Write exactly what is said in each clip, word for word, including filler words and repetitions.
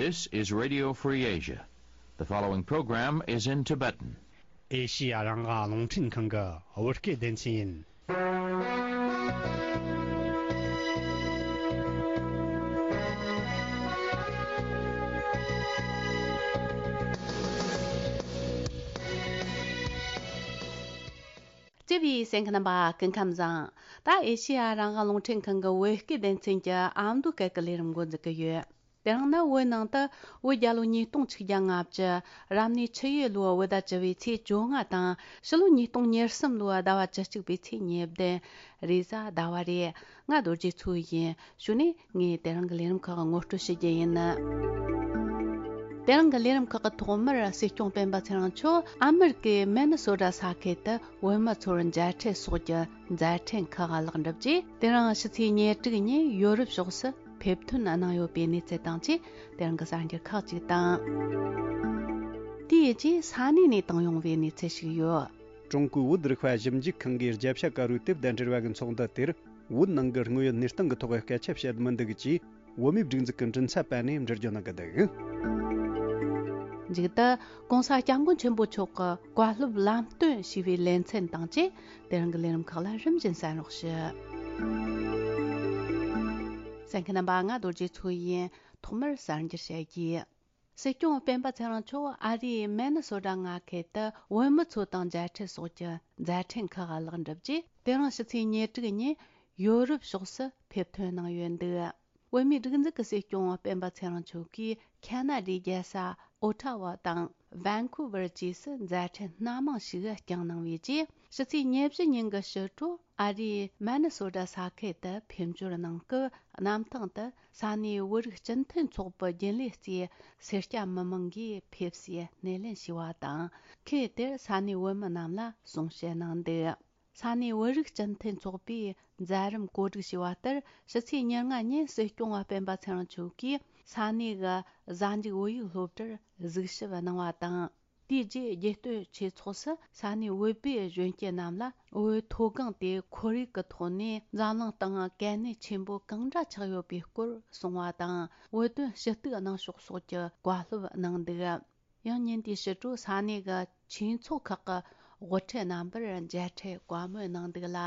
This is Radio Free Asia. The following program is in Tibetan. ཨེ་ཤི་ཡ་རང་དབང་རླུང་འཕྲིན་ཁང་གི་བོད་སྐད་སྡེ་ཚན་ཡིན། བརྩེ་བའི་གསན་མཁན་རྣམ་པ་སྐུ་ཁམས་བཟང་། ད་ཨེ་ཤི་ཡ་རང་དབང་རླུང་འཕྲིན་ཁང་གི་བོད་སྐད་སྡེ་ཚན་གྱི་ཨ་མདོ་སྐད་ཀྱི་ལས་རིམ་འགོ་འཛུགས་ཀྱི་ཡོད། དེ་རིང་ནི་བོད་ནང་དུ་བོད་རྒྱལ་ལོ་ཉིས་སྟོང་ཆིག་བརྒྱ་ལྔ་བཅུ། རབ་གནས་ཆུ་ཡོས་ལོའི་བོད་ཟླ་བཅུ་བའི་ཚེས་བཅོ་ལྔ་དང་། ཕྱི་ལོ་ཉིས་སྟོང་ཉེར་གསུམ་ལོའི་ཟླ་བ་བཅུ་གཅིག་པའི་ཚེས་ཉེར་བདུན། རེས་གཟའ་ཟླ་བ་རེད། ང་རྡོ་རྗེ་མཚོ་ཡིན། གཞུག་ནས་ངས་དེ་རིང་གི་ལས་རིམ་ཁག་ངོ་སྤྲོད་ཞུ་རྒྱུ་ཡིན། དེ་རིང་གི་ལས་རིམ་ཁག་གི་ཐོག་མར་སྲིད་སྐྱོང་སྤེན་པ་ཚེ་རིང་མཆོག་ཨ་མེ་རི་ཀའི་མེ་ནི་སོ་ཊ་ས་ཁུལ་དུ་བོད་མི་ཚོར་མཇལ་འཕྲད་སོགས་ཀྱི་མཛད་འཕྲིན་ཁག་ལེགས་གྲུབ་རྗེས། དེ་རིང་ཕྱི་ཚེས་ཉེར་དྲུག་ཉིན་ཡོ་རོབ་ཕྱོགས་སུ་ཕེབས་ཐོན་གནང་ཡོད་པའི་གནས་ཚུལ་དང་བཅས། དེ་རིང་གི་གསར་འགྱུར་ཁག་ཅིག་དང་། དེའི་རྗེས་ས་གནས་ནས་བཏང་ཡོང་བའི་གནས་ཚུལ་ཞིག་ཡོད། ཀྲུང་གོའི་བོད་རིག་པ་ཞིབ་འཇུག་ཁང་གིས་རྒྱབ་ཤ་དཀར་པོའི་དེབ་དང་འབྲེལ་བ་གི་ཚོགས་འདུ་དེར། བོད་ནང་གི་དངོས་ཡོད་གནས་སྟངས་ཀྱི་ཐོག་སྐད་ཆ་བཤད་མི་འདུག་ཅེས། བོད་མིའི་སྒྲིག་འཛུགས་ཀྱི་མགྲིན་ཚབ་པ་ནས་འགྲེལ་བརྗོད་གནང་གི་འདུག། མཇུག་ཏུ། ྋགོང་ས་ྋསྐྱབས་མགོན་ཆེན་པོ་མཆོག་གི་བཀའ་སློབ་ལམ་སྟོན་ཞེས་པའི་ལེ་ཚན་དང་བཅས། དེ་རིང་གི་ལས་རིམ་ཁག་ལ་རིམ་བཞིན་གསན་རོགས་ཞུ། གསན་མཁན་རྣམ་པ། ང་རྡོ་རྗེ་མཚོ་ཡིན། ཐོག་མར་གསར་འགྱུར་བཤད་རྒྱུ། སྲིད་སྐྱོང་སྤེན་པ་ཚེ་རིང་མཆོག་ཨ་རིའི་མེ་ནི་སོ་ཊ་མངའ་ཁུལ་དུ་བོད་མི་ཚོ་དང་མཇལ་འཕྲད་སོགས་ཀྱི་མཛད་འཕྲིན་ཁག་ལེགས་འགྲུབ་རྗེས། དེ་རིང་ཕྱི་ཚེས་ཉེར་དྲུག་ཉིན་ཡོ་རོབ་ཕྱོགས་སུ་ཕེབས་ཐོན་གནང་ཡོད་འདུག། བོད་མིའི་སྒྲིག་འཛུགས་ཀྱི་སྲིད་སྐྱོང་སྤེན་པ་ཚེ་རིང་མཆོག་གིས་ཁ་ན་ཌའི་རྒྱལ་ས་ཨོ་ཊ་ཝ་དང་ཝན་ཀུ་ཝར་བཅས་སུ་མཛད་འཕྲིན་སྣ་མང་ཞིག་བསྐྱངས་གནང་བའི་རྗེས། ཕྱི་ཚེས་ཉེར་བཞི་ཉིན་གྱི་ཕྱི་དྲོ། ཨ་རིའི་མེ་ནི་སོ་ཊ་ས་ཁུལ་དུ་ཕེབས་འབྱོར་གནང་སྐབས། གནམ་ཐང་དུ་ས་གནས་བོད་རིགས་སྤྱི་མཐུན་ཚོགས་པའི་རྒྱུན་ལས་ཚོས་སེར་སྐྱ་མི་མང་གིས་ཕེབས་སའི་སྣེ་ལེན་ཞུས་པ་དང་། ཁུལ་དེར་ས་གནས་བོད་མི་རྣམས་ལ་གསུང་བཤད་གནང་འདུག། ས་གནས་བོད་རིགས་སྤྱི་མཐུན་ཚོགས་པས་མཛད་རིམ་གོ་སྒྲིག་ཞུས་པ་ལྟར། ཕྱི་ཚེས་ཉེར་ལྔ་ཉིན་སྲིད་སྐྱོང་སྤེན་པ་ཚེ་རིང་མཆོག་གིས་ས་གནས་ཀྱི་གཟའ་མཇུག་བོད་ཡིག་སློབ་གྲྭར་གཟིགས་ཞིབ་གནང་བ་དང་། དེའི་རྗེས་རྒྱལ་སྟོད་ཆོས་ཚོགས་སུ་ས་གནས་བོད་པའི་གཞོན་སྐྱེས་རྣམས་ལ་བོད་མཐོ་སྒང་དེ་ཁོར་ཡུག་གི་ཐོག་ནས་འཛམ་གླིང་སྟེང་གལ་གནད་ཆེན་པོ་གང་འདྲ་ཆགས་ཡོད་པའི་སྐོར་གསུངས་པ་དང་། བོད་དོན་ཞུ་གཏུག་གནང་ཕྱོགས་སོགས་ཀྱི་བཀའ་སློབ་གནང་འདུག། ཡང་ཉིན་དེའི་ཕྱི་དྲོ་ས་གནས་ཀྱི་ཆོས་ཚོགས་ཁག་གི་དབུ་ཁྲིད་རྣམ་པར་མཇལ་འཕྲད་བཀའ་མོལ་གནང་འདུག་ལ།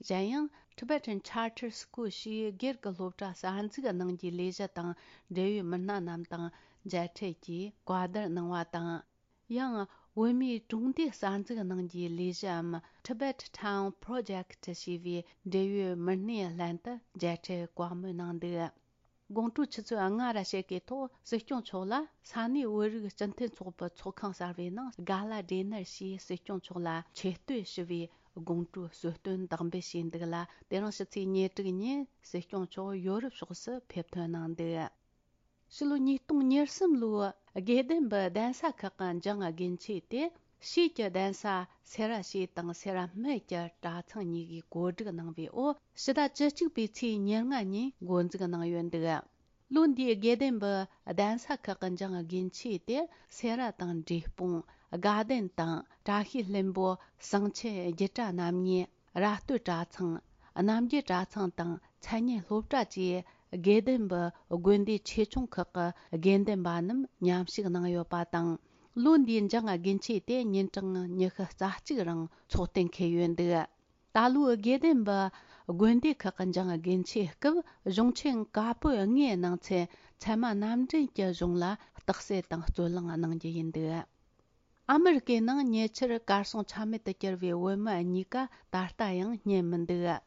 གཞན་ཡང་Tibetan Charter School ཞེས་སྒེར་གྱི་སློབ་གྲྭ་གསར་འཛུགས་གནང་རྒྱུའི་ལས་གཞི་དང་འབྲེལ་ཡོད་མི་སྣ་རྣམས་དང་མཇལ་འཕྲད་ཀྱིས་བཀའ་བསྡུར་གནང་བ་དང་། ཡང་བོད་མིའི་གྲོང་སྡེ་གསར་འཛུགས་གནང་རྒྱུའི་ལས་གཞིའམ་Tibet Town Project ཞེས་པའི་འབྲེལ་ཡོད་མི་སྣའི་ལྷན་དུ་མཇལ་འཕྲད་བཀའ་མོལ་གནང་འདུག། དགོང་དྲོའི་ཆུ་ཚོད་ལྔ་ར་ཕྱེད་ཀའི་ཐོག་སྲིད་སྐྱོང་མཆོག་ལ་ས་གནས་བོད་རིགས་སྤྱི་མཐུན་ཚོགས་པའི་ཚོགས་ཁང་གསར་བའི་ནང་གྷ་ལ་ཌི་ནར་ཞེས་སྲིད་སྐྱོང་མཆོག་ལ་ཆེ་བསྟོད་ཞུ་བའི་དགོང་དྲོའི་གསོལ་སྟོན་དག་འབུལ་བྱས་འདུག་ལ། དེ་རིང་ཕྱི་ཚེས་ཉེར་དྲུག་ཉིན་སྲིད་སྐྱོང་མཆོག་ཡོ་རོབ་ཕྱོགས་སུ་ཕེབས་ཐོན་གནང་འདུག། ཕྱི་ལོ་ཉིས་སྟོང་ཉེར་གསུམ་ལོའི་དགེ་ལྡན་པའི་གདན་ས་ཁག་གི་འཇང་དགུན་ཆོས་དེ། ཕྱིས་ཀྱི་གདན་ས་སེ་ར་བྱེས་དང་སེ་ར་སྨད་ཀྱི་གྲྭ་ཚང་གཉིས་ཀྱིས་གོ་སྒྲིག་གནང་བའི་འོག་ཕྱི་ཟླ་བཅུ་གཅིག་པའི་ཚེས་ཉེར་ལྔ་ཉིན་འགོ་འཛུགས་གནང་ཡོད་འདུག། ལོ་འདིའི་དགེ་ལྡན་པའི་གདན་ས་ཁག་གི་འཇང་དགུན་ཆོས་དེ་སེ་ར་དང་འབྲས་སྤུངས། དགའ་ལྡན་དང་བཀྲ་ཤིས་ལྷུན་པོ། ཟངས་ཆུ་རྒྱུད་གྲྭ་རྣམ་གཉིས། ར་སྟོད་གྲྭ་ཚང་། རྣམ་རྒྱལ་གྲྭ་ཚང་དང་མཚན་སྙན་སློབ་གྲྭ་བཅས་དགེ་ལྡན་པའི་དགོན་སྡེ་ཆེ་ཆུང་ཁག་གི་དགེ་འདུན་པ་རྣམས་མཉམ་ཞུགས་གནང་ཡོད་པ་དང་། ལོ་འདིའི་འཇང་དགུན་ཆོས་དེ་ཉིན་གྲངས་ཉི་ཤུ་རྩ་གཅིག་རིང་ཚོགས་གཏན་འཁེལ་ཡོད་འདུག། ད་ལོའི་དགེ་ལྡན་པའི་དགོན་སྡེ་ཁག་གི་འཇང་དགུན་ཆོས་སྐབས་གཞུང་ཆེན་བཀའ་པོད་ལྔའི་ནང་ཚན་ཚད་མ་རྣམ་འདྲེན་གྱི་གཞུང་ལ་རྟགས་གསལ་དང་རྩོད་གླེང་གནང་རྒྱུ་ཡིན་འདུག། ཨ་མི་རི་ཀའི་ནང་ཉེ་ཆར་གར་སོང་ཆ་མེད་དུ་གྱུར་བའི་བོད་མི་གཉིས་ཀ་ད་ལྟ་ཡང་རྙེད་མི་འདུག།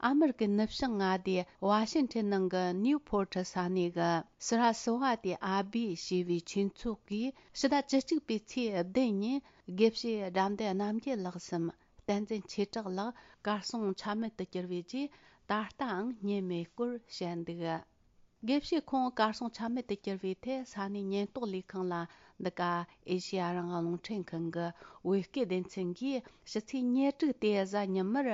ཨ་མི་རི་ཀའི་ནུབ་བྱང་མངའ་སྡེ་ཝ་ཤིང་ཊོན་ནང་གི་ནིའུ་ཕོར་ཊི་ས་གནས་ཀྱི་སི་ར་སི་ཝ་ཏི་ཨ་བྷི་ཞེས་པའི་ཆོས་ཚོགས་ཀྱིས་ཕྱི་ཟླ་བཅུ་གཅིག་པའི་ཚེས་བདུན་ཉིན་དགེ་བཤེས་དགྲ་འདུལ་རྣམ་རྒྱལ་ལགས་སམ་བསྟན་འཛིན་ཆོས་གྲགས་ལགས་གར་སོང་ཆ་མེད་དུ་གྱུར་བའི་རྗེས། ད་ལྟའང་རྙེད་མེད་སྐོར་བཤད་འདུག། དགེ་བཤེས་ཁོང་གར་སོང་ཆ་མེད་དུ་གྱུར་བའི་ཐད་ས་གནས་ཉེན་རྟོག་ལས་ཁང་ལ། འདི་ག་ཨེ་ཤེ་ཡ་རང་དབང་རླུང་འཕྲིན་ཁང་གི་བོད་སྐད་སྡེ་ཚན་གྱིས་ཕྱི་ཚེས་ཉེར་དྲུག་སྟེ་གཟའ་ཉི་མར་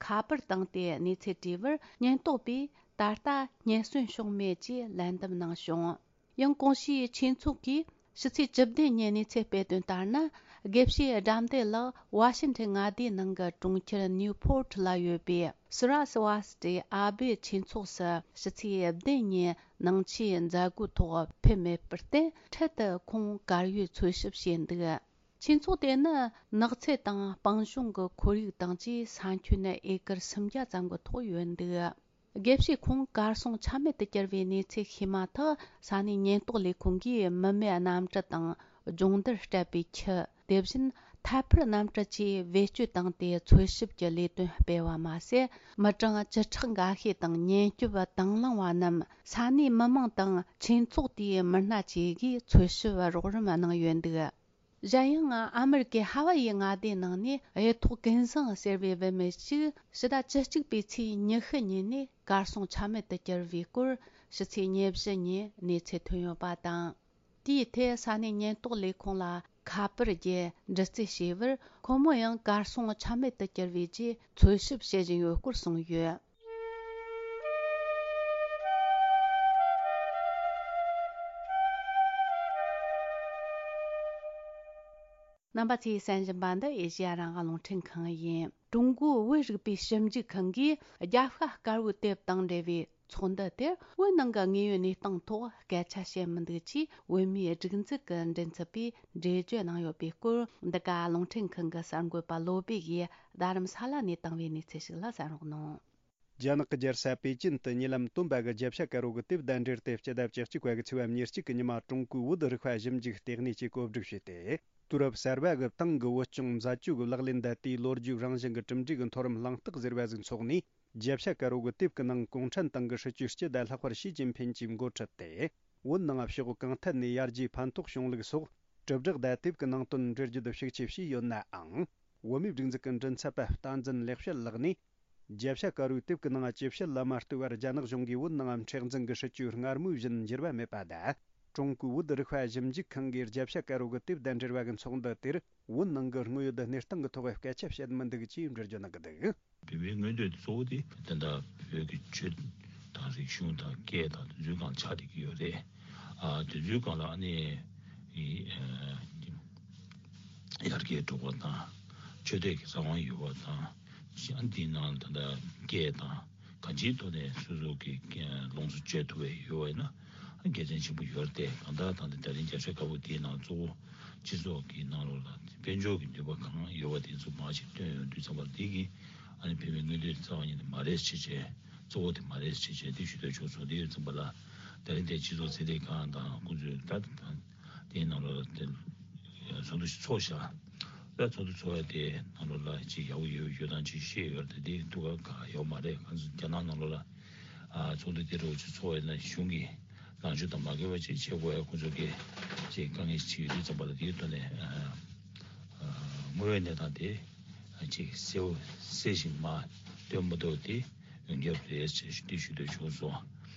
ཁ་པར་བཏང་སྟེ་གནས་ཚུལ་དྲིས་པར། ཉེན་རྟོག་པས་ད་ལྟ་རྙེད་སོན་བྱུང་མེད་ཅེས་ལན་འདེབས་གནང་བྱུང་། ཡང་གོང་ཞུས་ཆོས་ཚོགས་ཀྱིས་ཕྱི་ཚེས་བཅུ་བདུན་ཉིན་གནས་ཚུལ་སྤེལ་དོན་ལྟར་ན། དགེ་བཤེས་དགྲ་འདུལ་ལགས་ཝ་ཤིན་ཊོན་མངའ་སྡེའི་ནང་གི་གྲོང་ཁྱེར་ནིའུ་ཕོར་ཊི་ལ་ཡོད་པའི་སི་ར་སི་ཝ་སི་ཊི་ཨ་བྷེ་ཆོས་ཚོགས་སུ་ཕྱི་ཚེས་བདུན་ཉིན་ནང་ཆོས་མཛད་སྒོའི་ཐོག་ཕེབས་མེད་པར་བརྟེན། འཕྲལ་དུ་ཁོང་གར་ཡོད་འཚོལ་ཞིབ་བྱས་འདུག་ཆོས་ཚོགས་དེ་ནི་ནགས་ཚལ་དང་སྤང་གཤིས་ཀྱི་ཁོར་ཡུག་དང་བཅས་ས་ཁྱོན་ཨེ་ཀར་སུམ་བརྒྱ་ཙམ་གྱི་ཐོག་ཡོད་འདུག་དགེ་བཤེས་ཁོང་གར་སོང་ཆ་མེད་དུ་གྱུར་བའི་གནས་ཚུལ་ཤེས་མ་ཐག་ས་གནས་ཉེན་རྟོག་ལས་ཁུངས་ཀྱིས་མི་མེད་གནམ་གྲུ་དང་སྦྱོང་བརྡར་སྤྲད་པའི་ཆུ། དེ་བཞིན་ཐད་འཕུར་གནམ་གྲུ་བཅས་བེད་སྤྱོད་བཏང་སྟེ་འཚོལ་ཞིབ་ཀྱི་ལས་དོན་སྤེལ་བ་མ་ཟད། མི་གྲངས་བཅུ་ཕྲག་འགའ་ཤས་དང་ཉེན་སྐྱོབ་དང་བླངས་པ་རྣམས་ས་གནས་མི་མང་དང་ཆོས་ཚོགས་དེའི་མི་སྣ་བཅས་ཀྱིས་འཚོལ་ཞིབ་རོགས་རམ་གནང་ཡོད་འདུག་གཞན་ཡང་ཨ་མི་རི་ཀའི་ཧ་ཝ་ཡི་མངའ་སྡེའི་ནང་ནས་གཡུ་ཐོག་ཀུན་བཟང་ཟེར་བའི་བུད་མེད་ཅིག་ཕྱི་ཟླ་བཅུ་གཅིག་པའི་ཚེས་ཉི་ཤུ་ཉིན་ནས་གར་སོང་ཆ་མེད་དུ་གྱུར་བའི་སྐོར་ཕྱི་ཚེས་ཉེར་བཞི་ཉིན་གནས་ཚུལ་ཐོན་ཡོད་པ་དང་། དེའི་ཐད་ས་གནས་ཉེན་རྟོག་ལས་ཁུངས་ལ་ཁ་པར་བརྒྱུད་འདྲི་རྩད་བྱས་པར། ཁོ་མོ་ཡང་གར་སོང་ཆ་མེད་དུ་གྱུར་བའི་རྗེས་འཚོལ་ཞིབ་བྱེད་བཞིན་ཡོད་སྐོར་གསུངས་ཡོད། རྣམ་པ་ཚོས་གསན་བཞིན་པ་འདི་ཨེ་ཤེ་ཡ་རང་དབང་རླུང་འཕྲིན་ཁང་ཡིན། ཀྲུང་གོའི་བོད་རིག་པའི་ཞིབ་འཇུག་ཁང་གིས་རྒྱབ་ཤ་དཀར་པོའི་དེབ་དང་འབྲེལ་བའི་ཚོགས་འདུ་དེར་བོད་ནང་གི་དངོས་ཡོད་གནས་སྟངས་ཐོག་སྐད་ཆ་བཤད་མི་འདུག་ཅེས་བོད་མིའི་སྒྲིག་འཛུགས་ཀྱི་མགྲིན་ཚབ་པས་འགྲེལ་བརྗོད་གནང་ཡོད་པའི་སྐོར། འདི་ག་རླུང་འཕྲིན་ཁང་གི་གསར་འགོད་པ་བློ་བྷེ་ཡིས་རྡ་རམ་ས་ལ་ནས་བཏང་བའི་གནས་ཚུལ་ཞིག་ལ་གསན་རོགས་གནང་། རྒྱ་ནག་གི་རྒྱལ་ས་པེ་ཅིན་དུ་ཉེ་ལམ་སྟོན་པ་གི་རྒྱབ་ཤ་དཀར་པོ་གི་དེབ་དང་འབྲེལ་ཏེ་སྤྱི་ཟླ་བཅུ་གཅིག་པ་གི་ཚེས་པ་ཉེར་གཅིག་གི་ཉི་མ་ཀྲུང་གོའི་བོད་རིག་པ་ཞིབ་འཇུག་ལྟེ་གནས་ཀྱིས་གོ་སྒྲིག་བྱས་ཏེ། དུས་རབས་གསར་པ་གི་ཏང་གི་བོད་སྐྱོང་མཛད་སྤྱོད་ཀྱི་ལག་ལེན་དང་དེའི་ལོ་རྒྱུས་རང་བཞིན་གྱི་གྲུབ་འབྲས་ཀྱི་མཐོ་རིམ་གླེང་སྟེགས་ཟེར་བ་ཟིག་འཚོགས་ནས། རྒྱབ་ཤ་དཀར་པོ་གི་དེབ་ཀྱི་ནང་གུང་ཁྲན་ཏང་གི་སྲིད་བྱུས་སྤྱི་ཟླ་ལྷག་པར་ཞི་ཅིན་ཕིན་གྱིས་འགོ་ཁྲིད་དེ། བོད་ནང་ཕྱོགས་གང་ཐད་ནས་ཡར་རྒྱས་ཕན་ཐོགས་བྱུང་ལུགས་སོགས་དྲིལ་བསྒྲགས་དང་དེབ་ཀྱི་ནང་དོན་འགྲེལ་བརྗོད་ཤུགས་ཆེ་བྱས་ཡོད་ནའང་། བོད་མིའི་སྒྲིག་འཛུགས་ཀྱི་མགྲིན་ཚབ་པ་བསྟན་འཛིན་ལེགས་བཤད་ལགས་ནས། རྒྱབ་ཤ་དཀར་པོའི་དེབ་ཀྱི་ནང་ཇི་བཤད་ལ་མ་ལྟོས་པར་རྒྱ་ནག་གཞུང་གིས་བོད་ནང་མཁྲེགས་འཛིན་གྱི་སྲིད་བྱུས་སྔར་མུས་བཞིན་འགྱུར་བ་མེད་པ་དང་། ཀྲུང་གོའི་བོད་རིག་པ་ཞིབ་འཇུག་ཁང་གིས་རྒྱབ་ཤ་དཀར་པོ་གི་དེབ་དང་འབྲེལ་བ་གི་ཚོགས་འདུ་དེར་བོད་ནང་གི་དངོས་ཡོད་གནས་སྟངས་ཀྱི་ཐོག་སྐད་ཆ་བཤད་མི་འདུག་ཅེས་འགྲེལ་བརྗོད་གནང་གི་འདུག་བོད་མིའི་མངོན་འདོད་དེ་གཙོ་བོ་དེ་དེ་འདྲ་བོད་ཀྱི་ཆོས་དང་རིག་གཞུང་དང་སྐད་དང་དེ་ཚོའི་སྒང་ཆགས་བསྡད་ཀྱི་ཡོད་རེད། ཨ་དེ་ཚོའི་སྒང་ལ་ཨ་ནི་ཨི་ཨ་ཡར་རྒྱས་འགྲོ་བ་དང་ཆོས་དད་ཀྱི་རང་དབང་ཡོད་པ་དང་ཨ་འདིའི་ནང་ད་ལྟ་སྐད་དང་གང་ཅིའི་ཐོག་ནས་སོ་སོ་གི་ལོངས་སུ་སྤྱོད་ཐུབ་པ་ཡོད་པ་ཡིན་ན། དགེ་མཚན་ཆེན་པོ་ཡོད་རེད་དེ། གང་ལྟར་ད་ལྟ་དེ་རིང་རྒྱབ་ཤ་དཀར་པོ་དེའི་ནང་གཙོ་བོ་སྤྱི་ཚོགས་ཀྱི་ནང་ལོགས་ལ་དཔལ་འབྱོར་གྱི་ནུས་པ་གང་ཡོད་པ་དེ་ཚོ་མར་ཅིག་བཏོན་ཡོང་དུས་ཙམ་པ་འདི་གི་ཨ་ནི་བོད་མིའི་མངོན་འདོད་རྩ་བ་ཉིད་ནས་མ་རེད་ཅེས་བྱས། གཙོ་བོ་དེ་མ་རེད་ཅེས་བྱས་དེ་ཞུ་འདོད་བྱུང་སོང་། དེ་ཡོད་ཙམ་པ་ལ་དེ་རིང་དེ་སྤྱི་ཚོགས་ཚན་རིག་ཁང་དང་ཁོང་ཚོས་ད་དེའི་ནང་ལོགས་ལ་དེ་ཚོགས་འདུ་ཞིག་ཚོགས་ཤག་ད་ཚོགས་འདུ་ཚོགས་ཡ་དེ་ནང་ལོགས་ལ་ཅིག་ཡག་པོ་ཡོད་ཡོད་དང་ཅིག་ཤེས་ཡོད་རེད་དེ། འདི་འདུག་ག་ག་ཡོད་མ་རེད། ང་ཚོ་རྒྱ་ནག་ནང་ལོགས་ལ་ཨ་ཚོགས་འདུ་དེ་འདྲ་བོ་ཅིག་ཚོགས་ཡོད་ན་གཞུང་གི་ལངས་ཕྱོགས་དང་མ་འགལ་བ་ཅིག་བྱེད་དགོས་ཡ་ཁོང་ཚོ་གིས་ཅིག་དཀའ་ངལ་ཅིག་ཡོད་དུས་ཙམ་པ་ལ་དེའི་ཐོག་ནས་ཨ་ཨ་དངོས་ཡོད་གནས་སྟངས་དེ་ཅིག་གསལ་པོ་གསལ་ཞིང་མ་སྟོན་མ་ཐུབ་དེ་ཡོང་རྒྱབ་རེད་ཅེས་འདི་ཞུ་འདོད་བྱུང་སོང་།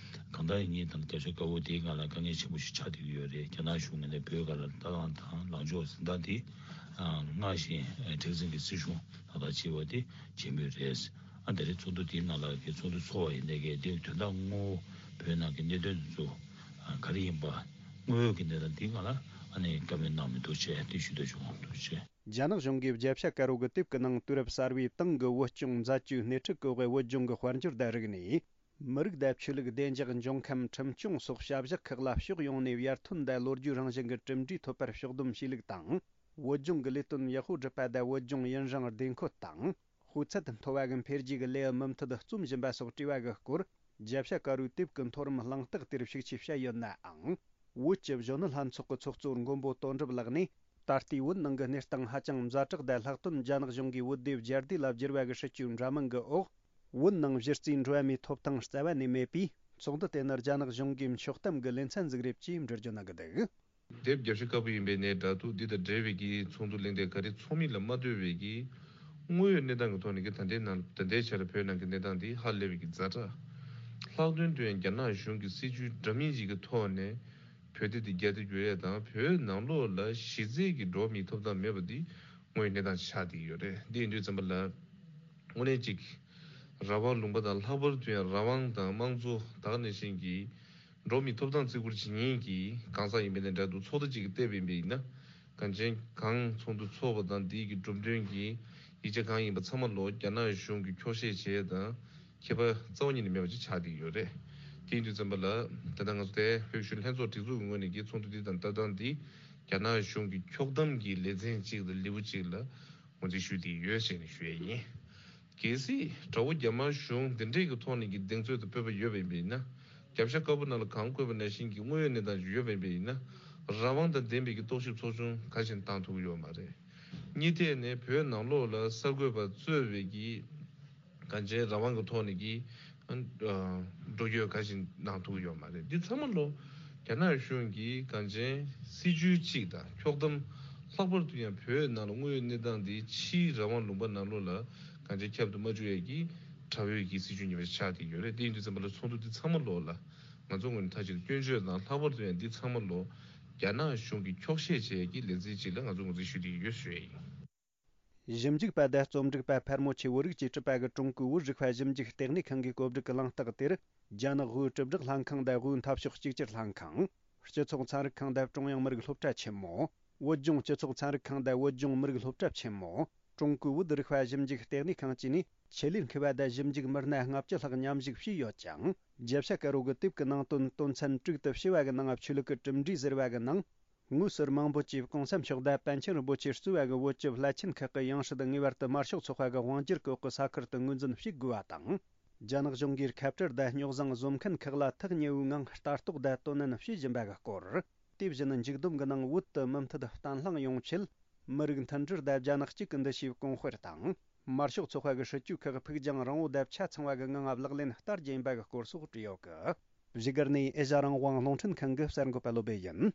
གང་ལྟར་ཡིན་ཉིན་དང་རྒྱབ་ཤ་དཀར་པོ་དེའི་སྒང་ལ་དཀའ་ངལ་ཆེན་པོ་ཞིག་ཆགས་བསྡད་ཀྱི་ཡོད་རེད། རྒྱ་ནག་གཞུང་ངོས་ནས་བོད་སྒང་ལ་ལྟ་སྟངས་དང་ལངས་ཕྱོགས་ཟིན་སྟངས་དེ་སྔར་བཞིན་མཁྲེགས་འཛིན་གྱི་སྲིད་གཞུང་ལག་བསྟར་བྱེད་པ་དེ་བྱེད་མུས་རེད། ཨ་དེ་རིང་ཚོགས་འདུ་དེའི་ནང་ལ་གི་ཚོགས་འདུ་ཚོགས་པ་ཡིན་ནའི་གི་དེ་དོན་དག་དངོས་པོ་བོད་ནང་གི་གནད་དོན་དེ་ཚོ་ག་རེ་ཡིན་པ་དངོས་ཡོད་ཀྱི་གནས་སྟངས་དེའི་སྒང་ལ་ཨ་ནི་བཀའ་མོལ་གནང་མི་འདུག་ཅེས་དེ་ཞུ་འདོད་བྱུང་། ཐུགས་རྗེ་ཆེ། རྒྱ་ནག་གཞུང་གིས་རྒྱབ་ཤ་དཀར་པོ་གི་དེབ་ཀྱི་ནང་དུས་རབས་གསར་པའི་ཏང་གི་བོད་སྐྱོང་མཛད་སྤྱོད་སྣེ་ཁྲིད་སྐོར་གྱི་བོད་ལྗོངས་ཀྱི་དཔལ་འབྱོར་དང་རིག་གནས། མི་རིགས་དང་ཆོས་ལུགས། བདེ་འཇགས། འབྱུང་ཁམས། ཁྲིམས་སྐྱོང་སོགས་བྱ་གཞག་ཁག་ལ་ཕྱོགས་ཡོངས་ནས་ཡར་ཐོན་དང་ལོ་རྒྱུས་རང་བཞིན་གྱི་གྲུབ་འབྲས་ཐོབ་པར་ཕྱོགས་བསྡོམས་བྱས་ལུགས་དང་། བོད་ལྗོངས་ཀྱི་ལས་དོན་ཡག་པོ་སྒྲུབ་པ་དང་བོད་ལྗོངས་ཡུན་རིང་བདེ་འཁོད་དང་། སྤུས་ཚད་མཐོ་བ་གི་འཕེལ་རྒྱས་ཀྱི་ལེའུ་མུ་མཐུད་རྩོམ་བཞིན་པ་སོགས་དྲི་བ་གི་སྐོར། རྒྱབ་ཤ་དཀར་པོའི་དེབ་ཀྱི་མཐོ་རིམ་གླེང་སྟེགས་དེར་ཤུགས་ཆེ་བཤད་ཡོད་ནའང་། བོད་ཀྱི་གཞོན་ནུ་ལྷན་ཚོགས་ཀྱི་ཚོགས་གཙོ་མགོན་པོ་དོན་གྲུབ་ལགས་ནས། ད་ལྟའི་བོད་ནང་གི་གནས་སྟངས་ཧ་ཅང་ཛ་དྲག་དང་ལྷག་དོན་རྒྱ་ནག་གཞུང་གིས་བོད་དེབ་རྒྱ་སྡེ་ལ་བསྒྱུར་བ་གི་སྲིད་བྱུས་འདྲ་མིན་གྱི་འོག་བོད་ནང་གཞི་རྩའི་འགྲོ་བ་མིའི་ཐོབ་ཐང་རྩ་བ་ནས་མེད་པས། ཚོགས་འདུ་དེ་ནི་རྒྱ་ནག་གཞུང་གིས་འཁྱོག་གཏམ་གྱི་ལེ་ཚན་ཟིག་རེད་ཅེས་འགྲེལ་བརྗོད་གནང་གི་འདུག་དེབ་རྒྱབ་ཤ་དཀར་པོ་ཡིན་པའི་གནས་འདྲ་འདུག་འདི་དང་འབྲེལ་བའི་གི་ཚོགས་འདུ་གླེང་སྟེགས་ག་རེ་ཚོགས་མིན་ལ་མ་ལྟོས་པའི་གི་དངོས་ཡོད་གནས་སྟངས་ཀྱི་ཐོག་ནས་གི་ད་ལྟའི་ནང་ད་ལྟའི་ཆར་བོད་ནང་གི་གནས་སྟངས་འདི་ཧ་ལས་པའི་གི་ཛ་དྲག་ལྷག་དོན་དུ་ཡང་རྒྱ་ནག་གཞུང་གི་སྲིད་བྱུས་འདྲ་མིན་ཞིག་གི་ཐོག་ནས་བོད་དེབ་དེ་རྒྱ་དེབ་བསྒྱུར་ཡས་དང་བོད་ནང་ལོགས་ལ་གཞི་རྩའི་གི་འགྲོ་བ་མིའི་ཐོབ་ཐང་མེད་པ་འདི་དངོས་ཡོད་གནས་སྟངས་ཆགས་བསྡད་ཡོད་རེད། འདི་ཡིན་དུས་ཙམ་པ་ལ་དངོས་གནས་ཅིག་རང་དབང་ལུང་པ་དང་ལྷག་པར་དུ་ཡང་རང་དབང་དང་དམངས་གཙོ་ད་ག་ནང་བཞིན་གྱི་འགྲོ་བ་མིའི་ཐོབ་ཐང་བརྩི་བཀུར་བྱེད་མཁན་གྱི་གང་ཟག་ཡིན་པའི་གནས་འདྲ་འདུག་ཚོགས་སྡེ་གཅིག་གིས་བལྟས་པ་ཡིན་པ་ཡིན་ན། གང་ཅན་གང་ཚོགས་འདུ་ཚོགས་པ་དང་འདིའི་གི་གྲུབ་དོན་གྱི་ཡིག་ཆ་གང་ཡིན་པ་ཚང་མ་ལོ་རྒྱ་ནག་གཞུང་གིས་འཁྱོག་བཤད་བྱས་དང་ཁྱད་པར་རྩ་བ་ཉིད་ནས་མེད་པ་ཅིག་ཆགས་བསྡད་ཡོད་རེད། དེ་ཡིན་དུས་ཙམ་པ་ལ་ད་ལྟ་ང་ཚོ་དེ་བོད་གཞུང་ལྷན་ཚོགས་སྒྲིག་འཛུགས་ཀྱི་ངོས་ནས་ཀྱི་ཚོགས་འདུ་འདི་དང་ལྟ་སྟངས་འདི་རྒྱ་ནག་གཞུང་གི་འཁྱོག་གཏམ་གྱི་ལེ་ཚན་གཅིག་དང་ལེའུ་གཅིག་ལ་ངོས་འཛིན་ཞུས་བསྡད་ཡོད་ཅེས་ནས་ཞུ་ཡས་ཡིན། གལ་སྲིད་དགྲ་བོ་རྒྱ་དམར་གཞུང་འདི་འདྲས་ཀྱི་ཐོག་ནས་ཀྱི་གདེང་ཚོད་དང་སྤོབས་པ་ཡོད་པ་ཡིན་པ་ཡིན་ན། རྒྱབ་ཤ་དཀར་པོ་ནང་ལ་གང་བཀོད་པ་ནང་བཞིན་གྱི་དངོས་ཡོད་གནས་སྟངས་ཤིག་ཡོད་པ་ཡིན་པ་ཡིན་ན། རང་དབང་དང་ལྡན་པའི་གི་རྟོག་ཞིབ་ཚོགས་ཆུང་ག་ཞིག་བཏང་ཐུབ་ཀྱི་ཡོད་མ་རེད། གཉིས་ཐད་ནས་བོད་ནང་ལོགས་ལ་གསར་འགོད་པ་གཙོས་པའི་གི་གང་ཅན་རང་དབང་གི་ཐོག་ནས་ཀྱི་འགྲོ་སྐྱོད་ག་ཞིག་གནང་ཐུབ་ཀྱི་ཡོད་མ་རེད། འདི་ཚང་མ་ལོ་རྒྱ་ནག་གཞུང་གིས་གང་ཅན་སྲིད་ཇུས་གཅིག་དང་འཁྱོག་གཏམ། ལྷག་པར་དུ་ཡང་བོད་ནང་ལ་དངོས་ཡོད་གནས་སྟངས་འདི་ཕྱིའི་རང་དབང་ལུང་པ་ནང་ལོགས་ལ་གང་ཅན་ཁྱབ་ཏུ་མ་བཅུག་ཡས་ཀྱི་དགྲ་བོའི་གི་སྲིད་ཇུས་ཉེས་པ་ཆགས་བསྡད་ཡོད་རེད། དེ་ཡིན་དུས་ཙམ་པ་ལ་ཚོགས་འདུ་འདི་ཚང་མ་ལོ་ལ་ང་ཚོ་ངོས་ནས་མཐའ་གཅིག་ཏུ་སྐྱོན་བརྗོད་དང་། ལྷག་པར་དུ་ཡང་འདི་ཚང་མ་ལོ་རྒྱ་ནག་གཞུང་གིས་འཁྱོག་བཤད་བྱས་ཡས་ཀྱི་ལེ་ཚན་གཅིག་ལ་ང་ཚོ་ངོས་འཛིན་ཞུ་བསྡད་ཡོད་ཞུ་ཡས་ཡིན། ཞིབ་འཇུག་པ་དང་རྩོམ་སྒྲིག་པ་ཕལ་མོ་ཆེ་བོད་རིགས་ཀྱིས་གྲུབ་པ་གི་ཀྲུང་གོའི་བོད་རིག་པ་ཞིབ་འཇུག་ལྟེ་གནས་ཁང་གི་གོ་སྒྲིག་གི་གླེང་སྟེགས་དེར། རྒྱ་ནག་དབུས་གྲུབ་བསྒྲགས་ལྷན་ཁང་དང་དབུས་འཐབ་ཕྱོགས་གཅིག་གྱུར་ལྷན་ཁང་། སྤྱི་ཚོགས་ཚན་རིག་ཁང་དང་ཀྲུང་དབྱང་མི་རིགས་སློབ་གྲྭ་ཆེན་མོ། བོད་ལྗོངས་སྤྱི་ཚོགས་ཚན་རིག་ཁང་དང་བོད་ལྗོངས་མི་རིགས་སློབ་གྲྭ་ཆེན་མོ། ཀྲུང་གོའི་བོད་རིག་པ་ཞིབ་འཇུག་ལྟེ་གནས་ཁང་བཅས་ནས་ཆེད་ལས་མཁས་པ་དང་ཞིབ་འཇུག་མི་སྣ་ལྔ་བཅུ་ལྷག་མཉམ་ཞུགས་བྱས་ཡོད་ཅིང་། རྒྱལ་བྱ་དཀར་པོ་གི་དེབ་ཀྱི་ནང་དོན་དོན་ཚན་དྲུག་ཏུ་ཕྱེ་བ་གི་ནང་ཆོས་ལུགས་ཀྱི་གྲུབ་འབྲས་ཟེར་བ་གི་ནང་། དངོས་སུ་མང་པོ་གྱིས་གོང་ས་མཆོག་དང་པཎ་ཆེན་རིན་པོ་ཆེ་གཙོས་པ་གི་བོད་ཀྱི་བླ་ཆེན་ཁག་གི་ཡང་སྲིད་ངེས་པར་དུ་དམར་ཤོག་ཚོགས་པ་གི་དབང་སྒྱུར་གྱི་འོག་གི་ས་ཁུལ་དུ་ངོས་འཛིན་བྱེད་དགོས་པ་དང་། རྒྱ་ནག་གཞུང་གིས་ཁ་བྲལ་དང་རྙོག་བཟང་བཟོ་མཁན་ཁག་ལ་ཐག་ཉེ་བོའི་ངང་ལྟ་རྟོག་དང་དོ་ནན་བྱེད་བཞིན་པ་གི་སྐོར། དེ་བཞིན་མཇུག་བསྡོམས་ཀྱི་ནང་བོད་དུ་མུ་མཐུད་བརྟན་ལྷིང་ཡོང་ཆེད། མི་རིགས་མཐུན་སྒྲིལ་དང་རྒྱ་ནག་གཅིག་གི་འདུ་ཤེས་གོང་སྤེལ་དང་། དམར་ཤོག་ཚོགས་པ་གི་སྲིད་ཇུས་ཁག་ཕུགས་རྒྱང་རིང་བོ་དང་ཆ་ཚང་བ་གི་ངང་ལག་ལེན་བསྟར་རྒྱུ་ཡིན་པ་གི་སྐོར་སོགས་བྲིས་ཡོད་གི། བཞུགས་སྒར་ནས་ཨེ་ཤ་རང་དབང་རླུང་འཕྲིན་ཁང་གི་གསར་འགོད་པ་བློ་བྷེ་ཡིན།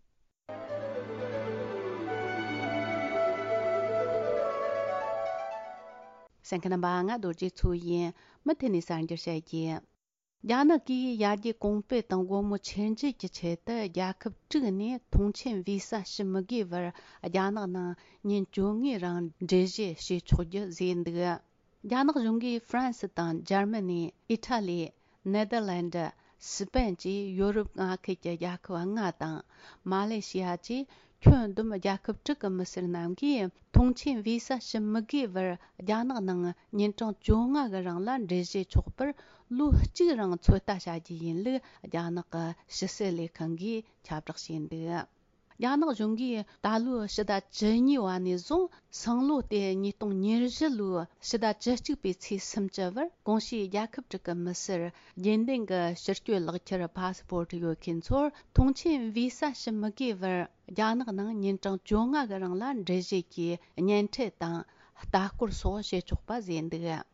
གསན་མཁན་རྣམ་པ། ང་རྡོ་རྗེ་མཚོ་ཡིན། མུ་མཐུད་ནས་གསར་འགྱུར་བཤད་རྒྱུ། རྒྱ་ནག་གིས་ཡར་རྒྱས་གོང་སྤེལ་དང་སྒོ་མོ་ཆེར་འབྱེད་ཀྱི་ཆེད་དུ། རྒྱལ་ཁབ་དྲུག་ནས་ཐོངས་མཆན་བི་ས་ཞུ་མི་དགོས་པར་རྒྱ་ནག་ནང་ཉིན་བཅོ་ལྔའི་རིང་འགྲུལ་བཞུད་བྱེད་ཆོག་རྒྱུ་བཟོས་འདུག། རྒྱ་ནག་གཞུང་གིས་ཧྥ་རན་སི་དང་འཇར་མ་ནི། ཨི་ཊ་ལི། ནེ་དར་ལན་ཌི། སི་པན་བཅས་ཡོ་རོབ་མངའ་ཁུལ་གྱི་རྒྱལ་ཁབ་ལྔ་དང་། མ་ལེ་ཤི་ཡ་བཅས་ཁྱོན་བསྡོམས་རྒྱལ་ཁབ་དྲུག་གི་མི་སེར་རྣམས་ཀྱིས་ཐོངས་མཆན་བི་ས་ཞུ་མི་དགོས་པར་རྒྱ་ནག་ནང་ཉིན་གྲངས་བཅོ་ལྔ་གི་རིང་ལ་འགྲུལ་བཞུད་ཆོག་པར་ལོ་གཅིག་རིང་ཚོད་ལྟ་བྱ་རྒྱུ་ཡིན་ལུགས་རྒྱ་ནག་གི་ཕྱི་སྲིད་ལས་ཁང་གིས་ཁྱབ་བསྒྲགས་བྱས་འདུག། རྒྱ་ནག་གཞུང་གིས་ད་ལོའི་ཕྱི་ཟླ་བཅུ་གཉིས་པ་ནས་བཟུང་སང་ལོ་སྟེ་ཉིས་སྟོང་ཉེར་བཞི་ལོའི་ཕྱི་ཟླ་བཅུ་གཅིག་པའི་ཚེས་སུམ་ཅུ་བར་གོང་ཞུས་རྒྱལ་ཁབ་དྲུག་གི་མི་སེར་རྒྱུན་ལྡན་གྱི་ཕྱིར་སྐྱོད་ལག་ཁྱེར་པ་སི་པོར་ཊི་ཡོད་མཁན་ཚོར་ཐོངས་མཆན་བི་ས་ཞུ་མི་དགོས་པར་རྒྱ་ནག་ནང་ཉིན་གྲངས་བཅོ་ལྔ་གི་རིང་ལ་འགྲུལ་བཞུད་ཀྱི་གཉེན་འཕྲད་དང་ལྟ་སྐོར་སོགས་བྱེད་ཆོག་པ་བཟོས་འདུག།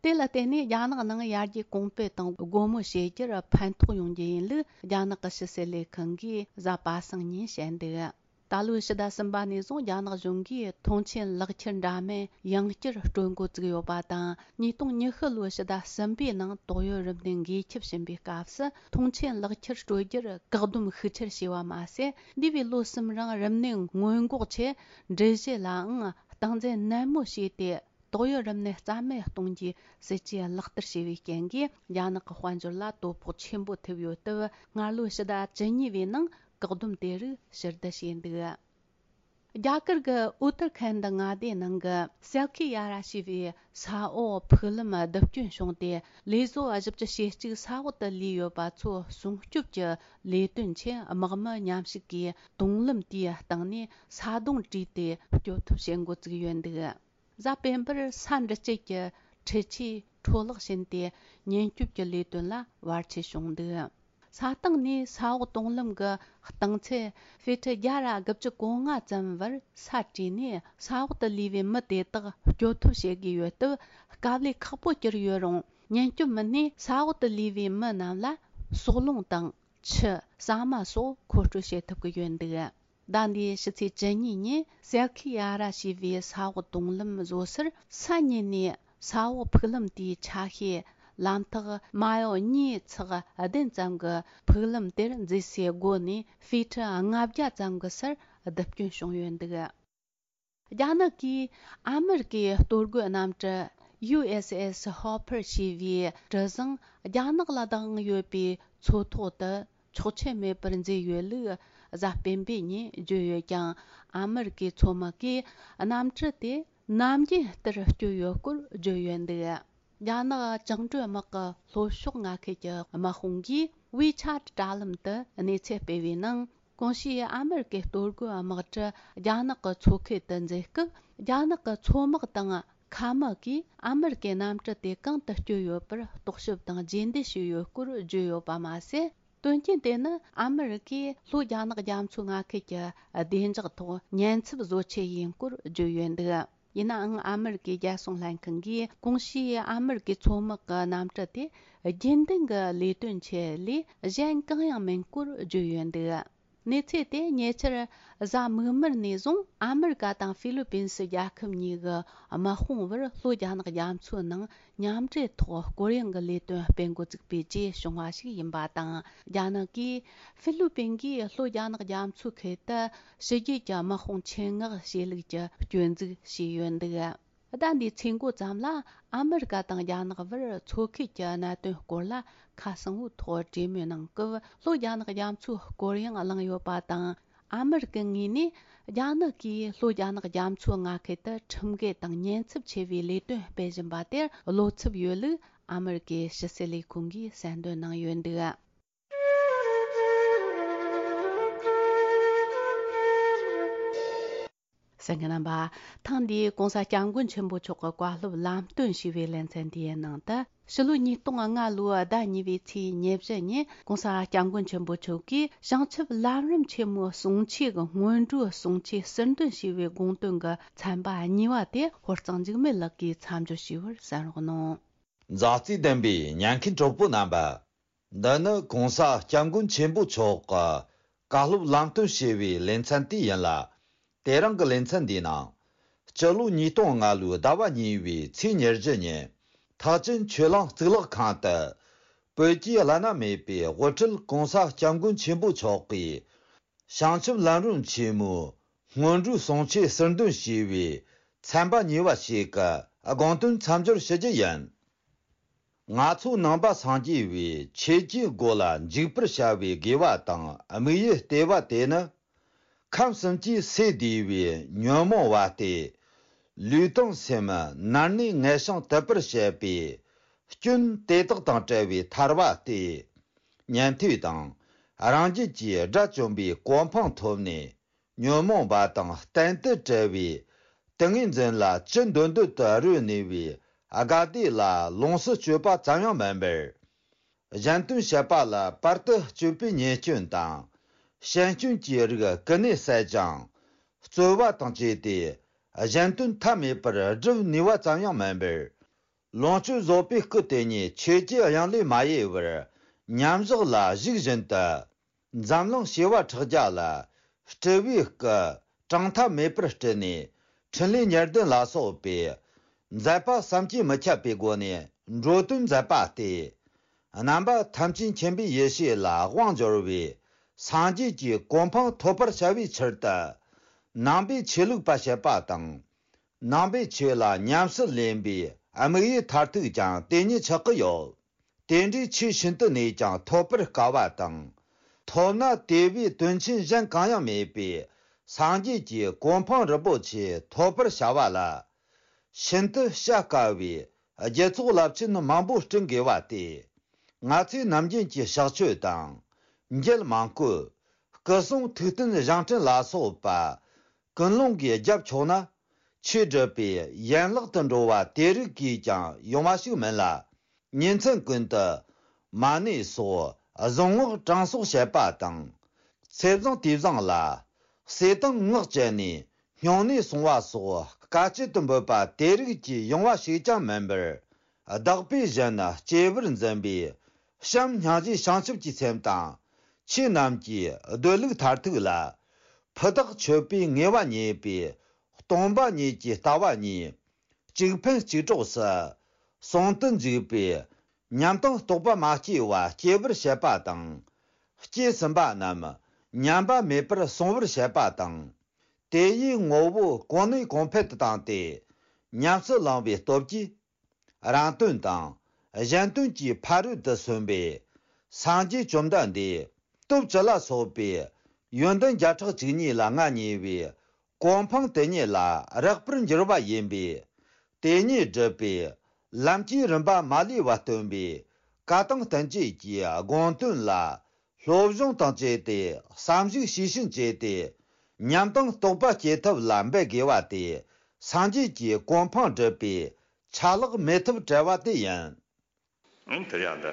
དེ་ལ་བརྟེན་ནས་རྒྱ་ནག་ནང་ཡར་རྒྱས་གོང་སྤེལ་དང་སྒོ་མོ་འབྱེད་རྒྱུར་ཕན་ཐོགས་ཡོང་རྒྱུ་ཡིན་ལུགས་རྒྱ་ནག་གི་ཕྱི་སྲིད་ལས་ཁང་གིས་གཟའ་པ་སངས་ཉིན་བཤད་འདུག། ད་ལོའི་ཕྱི་ཟླ་གསུམ་པ་ནས་བཟུང་རྒྱ་ནག་གཞུང་གིས་ཐོངས་མཆན་ལག་ཁྱེར་འདྲ་མིན་ཡང་བསྐྱར་སྤྲོད་འགོ་བཙུགས་ཡོད་པ་དང་། ཉིས་སྟོང་ཉི་ཤུ་ལོའི་ཕྱི་ཟླ་གསུམ་པའི་ནང་ཏོག་དབྱིབས་རིམས་ནད་འགོས་ཁྱབ་བྱིན་པའི་སྐབས་སུ་ཐོངས་མཆན་ལག་ཁྱེར་སྤྲོད་རྒྱུར་བཀག་སྡོམ་ཤུགས་ཆེར་བྱས་པ་མ་ཟད། འདས་པའི་ལོ་གསུམ་རིང་རིམས་ནད་སྔོན་འགོག་ཆེད་འགྲུལ་བཞུད་ལའང་སྟངས་འཛིན་ནན་མོ་བྱས་ཏེ། ཏོག་དབྱིབས་རིམས་ནད་རྩ་མེད་གཏོང་རྒྱུའི་སྲིད་ཇུས་ལག་བསྟར་བྱས་པའི་རྐྱེན་གྱིས། རྒྱ་ནག་གི་དཔལ་འབྱོར་ལ་དོ་ཕོག་ཆེན་པོ་ཐེབས་ཡོད་སྟབས། སྔར་ལོའི་ཕྱི་ཟླ་བཅུ་གཉིས་པའི་ནང་བཀག་སྡོམ་དེ་རིགས་ཕྱིར་བསྡུ་བྱས་འདུག། རྒྱ་གར་གྱི་ཨུ་ཏར་ཁན་ཌི་མངའ་སྡེའི་ནང་གི་སལ་ཁི་ཡ་ར་ཞེས་པའི་ས་འོག་ཕུག་ལམ་རྡིབ་སྐྱོན་བྱུང་སྟེ། ལས་བཟོ་བ་བཞི་བཅུ་ཞེ་གཅིག་ས་འོག་ཏུ་ལུས་ཡོད་པ་ཚོ་སྲུང་སྐྱོབ་ཀྱི་ལས་དོན་ཆེད། དམག་མི་མཉམ་ཞུགས་ཀྱིས་དུང་ལམ་དེའི་སྟེང་ནས་ས་རྡུང་བྲིས་ཏེ་སྐྱོབ་ཐབས་བྱེད་འགོ་བཙུགས་ཡོད་འདུག། གཟའ་སྤེན་པར་ས་འདྲུད་སྐྱེལ་གྱི་འཕྲུལ་ཆས་འཕྲོ་བརླག་ཕྱིན་ཏེ། ཉེན་སྐྱོབ་ཀྱི་ལས་དོན་ལ་བར་ཆད་བྱུང་འདུག། ས་སྟེང་ནས་ས་འོག་དུང་ལམ་གྱི་རྟིང་ཚད་ཧྥི་ཊི་བརྒྱ་ར་དགུ་བཅུ་གོ་ལྔ་ཙམ་བར་ས་བྲིས་ནས། ས་འོག་ཏུ་ལུས་པའི་མི་དེ་དག་སྐྱོབ་ཐབས་བྱེད་དགོས་ཡོད་སྟབས། དཀའ་ལས་ཁག་པོ་གྱུར་ཡོད་རུང་། ཉེན་སྐྱོབ་མི་སྣས་ས་འོག་ཏུ་ལུས་པའི་མི་རྣམས་ལ་སོལ་རླུང་དང་། ཆུ། ཟ་མ་སོགས་མཁོ་སྤྲོད་བྱེད་ཐུབ་ཀྱི་ཡོད་འདུག། ཟླ་འདིའི་ཕྱི་ཚེས་བཅུ་གཉིས་ཉིན་སལ་ཁི་ཡ་ར་ཞེས་པའི་ས་འོག་དུང་ལམ་བཟོ་སར་ས་ཉིན་ནས་ས་འོག་ཕུག་ལམ་དེའི་ཆ་ཤས་ལམ་ཐག་མ་ཡོ་གཉིས་ཚེག་བདུན་ཙམ་གྱི་ཕུག་ལམ་དེར་མཛེས་སའི་སྒོ་ནས་ཧྥི་ཁྲི་ལྔ་བརྒྱ་ཙམ་གྱི་སར་རྡིབ་སྐྱོན་བྱུང་ཡོད་འདུག། རྒྱ་ནག་གིས་ཨ་མེ་རི་ཀའི་གཏོར་རྒོལ་གནམ་གྲུ་ཡུ་ཨེས་ཨེས་ཧོ་ཕར་ཞེས་པའི་གྲུ་གཟིངས་རྒྱ་ནག་ལ་བདག་དབང་ཡོད་པའི་མཚོ་ཐོག་ཏུ་ཆོག་མཆན་མེད་པར་འཛུལ་ཡོད་ལུགས་ གཟའ་སྤེན་པའི་ཉིན་བརྗོད་ཡོད་ཀྱང་། ཨ་མི་རི་ཀའི་མཚོ་དམག་གིས་གནམ་གྲུ་དེ་ནམ་རྒྱུན་ལྟར་བསྐྱོད་ཡོད་སྐོར་བརྗོད་ཡོད་འདུག་རྒྱ་ནག་བཅིངས་འགྲོལ་དམག་གི་ལྷོ་ཕྱོགས་མངའ་ཁུལ་གྱི་དམག་དཔུང་གིས་ཝི་ཆ་ཊི་དྲ་ལམ་དུ་གནས་ཚུལ་སྤེལ་བའི་ནང་། གོང་ཞུས་ཨ་མི་རི་ཀའི་གཏོར་རྒོལ་དམག་གྲུ་རྒྱ་ནག་གི་མཚོ་ཁུལ་དུ་འཛུལ་སྐབས། རྒྱ་ནག་གི་མཚོ་དམག་དང་མཁའ་དམག་གིས་ཨ་མི་རི་ཀའི་གནམ་གྲུ་དེ་གང་དུ་བསྐྱོད་ཡོད་པར་རྟོག་ཞིབ་དང་རྗེས་འདེད་བྱས་ཡོད་སྐོར་བརྗོད་ཡོད་པ་མ་ཟད། དོན་རྐྱེན་དེ་ནི་ཨ་མི་རི་ཀས་ལྷོ་རྒྱ་ནག་རྒྱ་མཚོའི་མངའ་ཁུལ་གྱི་བདེ་འཇགས་ཐོག་ཉེན་ཚབས་བཟོ་ཆེད་ཡིན་སྐོར་བརྗོད་ཡོད་འདུག་ཡིན་ནའང་། ཨ་མི་རི་ཀའི་རྒྱལ་སྲུང་ལྷན་ཁང་གིས་གོང་ཞུས་ཨ་མི་རི་ཀའི་མཚོ་དམག་གི་གནམ་གྲུ་དེ་རྒྱུན་ལྡན་གྱི་ལས་དོན་ཆེད་ལས་གཞན་གང་ཡང་མིན་སྐོར་བརྗོད་ཡོད་འདུག་གནས་ཚུལ་དེ་ཉེ་ཆར་གཟའ་མིག་དམར་ནས་བཟུང་ཨ་མི་རི་ཀ་དང་ཧྥི་ལི་པིན་སི་རྒྱལ་ཁབ་གཉིས་ཀྱི་དམག་དཔུང་བར་ལྷོ་རྒྱ་ནག་རྒྱ་མཚོའི་ནང་མཉམ་འབྲེལ་ཐོག་སྐོར་གཡེང་གི་ལས་དོན་སྤེལ་འགོ་བཙུགས་པའི་རྗེས་བྱུང་བ་ཞིག་ཡིན་པ་དང་། རྒྱ་ནག་གིས་ཧྥི་ལི་པིན་གྱིས་ལྷོ་རྒྱ་ནག་རྒྱ་མཚོའི་ཁུལ་དུ་ཕྱི་རྒྱལ་གྱི་དམག་དཔུང་ཆེད་མངགས་བྱས་ལུགས་ཀྱི་སྐྱོན་འཛུགས་བྱས་ཡོད་འདུག་ཟླ་འདིའི་ཚེས་འགོ་ཙམ་ལ་ཨ་མི་རི་ཀ་དང་རྒྱ་ནག་བར་མཚོ་ཁུལ་གྱི་གནད་དོན་སྐོར་ལ་ཁ་གསལ་བོའི་ཐོག་གྲོས་མོལ་གནང་སྐབས། ལྷོ་རྒྱ་ནག་རྒྱ་མཚོའི་སྐོར་གཡེང་བླངས་ཡོད་པ་དང་། ཨ་མི་རི་ཀའི་ངོས་ནས་རྒྱ་ནག་གིས་ལྷོ་རྒྱ་ནག་རྒྱ་མཚོའི་མངའ་ཁུལ་དུ་ཁྲིམས་འགལ་དང་ཉེན་ཚབས་ཆེ་བའི་ལས་དོན་སྤེལ་བཞིན་པ་དེར་བློ་འཚབ་ཡོད་ལུགས་ཨ་མི་རི་ཀའི་ཕྱི་སྲིད་ལས་ཁུངས་ཀྱིས་གསལ་འདོན་གནང་ཡོད་འདུག་གསན་མཁན་རྣམ་པ། ཐེངས་འདིའི་༸གོང་ས་༸སྐྱབས་མགོན་ཆེན་པོ་མཆོག་གི་བཀའ་སློབ་ལམ་སྟོན་ཞུས་པའི་ལེ་ཚན་འདིའི་ནང་དུ། ཕྱི་ལོ་ཉིས་སྟོང་ལྔ་ལོའི་ཟླ་གཉིས་པའི་ཚེས་ཉེར་བཞི་ཉིན་༸གོང་ས་༸སྐྱབས་མགོན་ཆེན་པོ་མཆོག་གིས་བྱང་ཆུབ་ལམ་རིམ་ཆེན་མོའི་གསུང་ཆོས་ཀྱི་སྔོན་འགྲོའི་གསུང་ཆོས་ཟུར་འདོན་ཞུས་པའི་དགོངས་དོན་གྱི་ཚན་པ་གཉིས་པ་དེ་ཧོར་གཙང་འཇིགས་མེད་ལགས་ཀྱིས་མཚམས་སྦྱོར་ཞུས་པར་གསན་རོགས་གནང་། མཛའ་བརྩེ་ལྡན་པའི་ཉན་མཁན་གྲོགས་པོ་རྣམ་པ། འདི་ནི་༸གོང་ས་༸སྐྱབས་མགོན་ཆེན་པོ་མཆོག་གི་བཀའ་སློབ་ལམ་སྟོན་ཞུས་པའི་ལེ་ཚན་དེ་ཡིན་ལ། དེ་རིང་གི་ལེ་ཚན་འདིའི་ནང་། སྤྱི་ལོ་ཉིས་སྟོང་ལྔ་ལོའི་ཟླ་བ་གཉིས་པའི་ཚེས་ཉེར་བཞི་ཉིན། ཐེག་ཆེན་ཆོས་གླིང་གཙུག་ལག་ཁང་དུ། བོད་ཀྱི་བླ་ན་མེད་པའི་དབུ་ཁྲིད་༸གོང་ས་༸སྐྱབས་མགོན་ཆེན་པོ་མཆོག་གིས། བྱང་ཆུབ་ལམ་རིམ་ཆེན་མོའི་སྔོན་འགྲོའི་གསུང་ཆོས་ཟུར་འདོན་ཞུས་པའི་ཚན་པ་གཉིས་པ་ཞིག་གི་དགོངས་དོན་མཚམས་སྦྱོར་ཞུ་རྒྱུ་ཡིན། ང་ཚོ་ནང་པ་སངས་རྒྱས་པའི་ཆོས་ཀྱི་སྒོ་ལ་འཇུག་པར་བྱ་བའི་དགེ་བ་དང་དམིགས་ཡུལ་ལྟེ་བ་དེ་ནི། ཁམས་གསུམ་གྱི་སས་བསྡུས་པའི་ཉོན་མོངས་པ་སྟེ། ལུས་དང་སེམས་ནར་གནས་ངལ་ཞིང་དུབ་པར་བྱེད་པའི་སྐྱོན་དེ་དག་དང་བྲལ་བའི་ཐར་པ་སྟེ། ཉན་ཐོས་དང་རང་རྒྱལ་གྱི་དགྲ་བཅོམ་པའི་གོ་འཕང་ཐོབ་ནས། ཉོན་མོངས་པ་དང་གཏན་དུ་བྲལ་བའི་ཏིང་ངེ་འཛིན་ལ་ཅི་འདོད་འདོད་དུ་རོལ་ནུས་པའི་དགའ་བདེ་ལ་ལོངས་སུ་སྤྱོད་པ་ཙམ་ཡང་མིན་པར། གཞན་དོན་བྱེད་པ་ལ་བར་དུ་གཅོད་པའི་ཉེས་སྐྱོན་དང་། ཞན་སྐྱོན་གྱི་རིགས་ཀུན་ནས་བསལ་ཅིང་། རྩོལ་བ་དང་བཅས་ཏེ་གཞན་དོན་ཐབས་མེད་པར་སྒྲུབ་ནུས་པ་ཙམ་ཡང་མིན་པར། ལོངས་སྤྱོད་རྫོགས་པའི་སྐུ་དེ་ཉིད་ཆོས་ཀྱི་དབྱིངས་ལས་མ་གཡེལ་བར་མཉམ་བཞག་ལ་གཞུག་བཞིན་དུ། འཛམ་གླིང་བྱེ་བ་ཕྲག་བརྒྱ་ལ་སྤྲུལ་པའི་སྐུ་གྲངས་ཐ་མེད་པར་སྤྲུལ་ནས། འཕྲིན་ལས་གཉེར་ལྡན་ལ་སོགས་པའི་མཛད་པ་བསམ་གྱིས་མི་ཁྱབ་པའི་སྒོ་ནས་འགྲོ་དོན་མཛད་པ་སྟེ། རྣམ་པ་ཐམས་ཅད་མཁྱེན་པའི་ཡེ་ཤེས་ལ་དབང་འབྱོར་བའི་སངས་རྒྱས་ཀྱི་གོ་འཕང་ཐོབ་པར་བྱ་བའི་ཕྱིར་དུ། ནང་པའི་ཆོས་ལུགས་པ་བྱེད་པ་དང་། ནང་པའི་ཆོས་ལ་ཉམས་སུ་ལེན་པའི་དམིགས་ཡུལ་མཐར་ཐུག་ཀྱང་དེ་ཉིད་ཆགས་ཀྱི་ཡོད། དེ་འདྲའི་ཆོས་ཤིན་ཏུ་ནས་ཀྱང་ཐོབ་པར་དཀའ་བ་དང་། ཐོབ་ན་དེ་བས་དོན་ཆེན་གཞན་གང་ཡང་མེད་པའི་སངས་རྒྱས་ཀྱི་གོ་འཕང་རིན་པོ་ཆེ་ཐོབ་པར་བྱ་བ་ལ། ཤིན་ཏུ་བྱ་དཀའ་བའི་རྒྱུ་ཚོགས་རླབས་ཆེན་མང་པོ་བསྐྲུན་དགོས་པ་སྟེ། ང་ཚོས་ནམ་རྒྱུན་གྱི་ཕྱག་མཆོད་དང་། མཇལ་མང་བཀོད། སྐུ་གསུང་ཐུགས་རྟེན་བཞེངས་སྐྲུན་ལ་སོགས་པ། ཀུན་སློང་གིས་རྒྱབ་ཆོག་ན། ཆོས་སྒྲུབ་པའི་ཡན་ལག་ཏུ་འགྲོ་བ་དེ་རིགས་ཀྱིས་ཀྱང་ཡོང་བ་ཞིག་མིན་ལ། ཉིན་མཚན་ཀུན་ཏུ་མ་ཎི་སོགས་གཟུངས་སྔགས་གྲངས་གསོག་བྱེད་པ་དང་། ཚེ་བཟང་དུས་བཟང་ལ་ཟས་དང་སྔགས་བཅད་ནས་སྨྱུང་གནས་སྲུང་བ་སོགས་དཀའ་སྤྱད་དུ་འབོད་པ་དེ་རིགས་ཀྱིས་ཡོང་བ་ཞིག་ཀྱང་མིན་པར། བདག་པོས་གཞན་སྐྱེ་བར་འཛིན་པའི་བྱམས་སྙིང་རྗེ་བྱང་ཆུབ་ཀྱི་སེམས་དང་། ཆོས་རྣམས་ཀྱི་སྡོད་ལུགས་མཐར་ཐུག་ལ། ཕུ་ཐག་ཆོད་པའི་ངེས་པ་རྙེད་པའི་སྟོང་པ་ཉིད་ཀྱི་ལྟ་བ་གཉིས། གཅིག་ཕན་གཅིག་གྲོགས་སུ་ཟུང་དུ་འཇུག་པའི་ཉམས་དང་རྟོགས་པ་མ་སྐྱེས་པ་སྐྱེ་བར་བྱེད་པ་དང་། སྐྱེས་ཟིན་པ་རྣམས་ཉམས་པ་མེད་པར་སྲུང་བར་བྱེད་པ་དང་། དེ་ཡི་ངོ་བོ་གོང་ནས་གོང་འཕེལ་དུ་བཏང་སྟེ། ཉམས་སུ་བླང་བའི་སྟོབས་ཀྱིས། རང་དོན་དང་གཞན་དོན་གྱི་ཕ་རོལ་ཏུ་སོན་པའི་སངས་རྒྱས་བཅོམ་ལྡན་འདས་སྟོབས་བཅུ་ལ་སོགས་པའི་ ཡོན་ཏན་བརྒྱ་ཕྲག་བཅུ་གཉིས་ལ་མངའ་བརྙེས་པའི་གོ་འཕང་དེ་ཉིད་ལ་རེག་པར་འགྱུར་བ་ཡིན་པས། དེ་ཉིད་སྒྲུབ་པའི་ལམ་གྱི་རིམ་པ་མ་ལུས་པ་སྟོན་པའི་བཀའ་དང་བསྟན་བཅོས་ཀྱི་དགོངས་དོན་ལ་སློབ་སྦྱོང་དང་བཅས་ཏེ་བསམ་གཞིགས་ཤེས་བཞིན་བྱས་ཏེ། ཉམས་དང་རྟོགས་པ་སྐྱེ་ཐབས་ལ་འབད་དགོས་པ་དེ་སངས་རྒྱས་ཀྱི་གོ་འཕང་སྒྲུབ་པའི་ཆ་ལག་མེད་ཐབས་བྲལ་བ་དེ་ཡིན། ཨང་། དེར་ཡང་ད་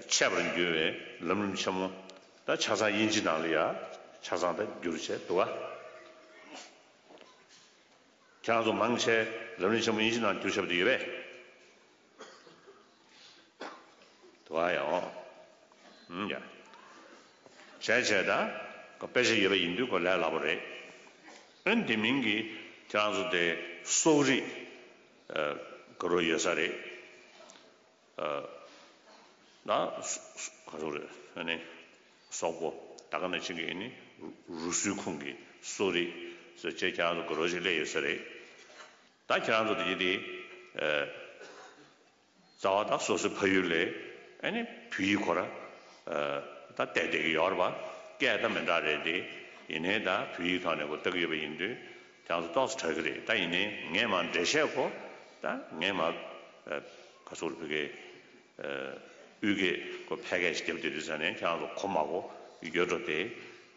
འཆད་པར་འགྱུར་བའི་ལམ་རིམ་ཆེན་མོ། ད་ཆ་ཚང་དབྱིན་ཇི་ནང་ལ་ཡ་ཆ་ཚང་ད་བསྒྱུར་བྱས་འདུག་ག་ཁྱེད་རང་ཚོ་མང་ཆེ་ལམ་རིམ་ཆེན་མོ་དབྱིན་ཇི་ནང་བསྒྱུར་བཞག་པ་དེ་ཡོད་པས། དུ་བ་ཡང་། ཨུམ་ཡ། བྱས་བྱས་ད། ཁོ་དཔེ་ཆ་ཡོད་པ་ཡིན་དུས་ཁོ་ལས་སླ་པོ་རེད། ཨན་དེ་མིན་གྱི་ཁྱེད་རང་ཚོ་དེ་སོག་རིགས། ཨ། ག་རུ་ཡོད་ས་རེད། ཨ། ད་སོ་སོ་ག་རུ་རེད་ཨ་ནི། སོག་པོ་ད་ག་ནང་བཞིན་གྱི་ཨ་ནི་རུ་རུ་སུའི་ཁོངས་ཀྱི་སོག་རིགས་ཟེར་བྱས་ཁྱེད་རང་ཚོ་ག་རུ་ཞིག་སླེབས་ཡོད་ས་རེད། ད་ཁྱེད་རང་ཚོ་དེ་གྱི་དེ། ཨ། རྩ་བ་དང་སོ་སོའི་ཕ་ཡུལ་ལས་ཨ་ནི་བོད་ཡིག་ཁོ་ར་ད་བལྟས་བསྡད་ཀྱི་ཡོད་རེད་པ། སྐད་ད་མི་འདྲ་རེད་དེ། ཡིན་ནའི་ད་བོད་ཡིག་ཐོག་ནས་ཁོ་ལྟ་གི་ཡོད་པ་ཡིན་དུས་ཁྱེད་ཚོ་ཏོག་ཙམ་དྲག་གི་རེད། ད་ཡིན་ནའི་ངས་མར་འགྲེལ་བཤད་ཁོ་ད་ངས་མར་ག་ཚོད་བོད་སྐད་དབུས་སྐད་ཁོ་ཕལ་སྐད་ཞིག་བརྒྱབ་བསྡད་དུས་ཙང་ནས་ཁྱེད་ཚོ་གོ་མ་གོ་ཡོད་འགྲོ་དེ།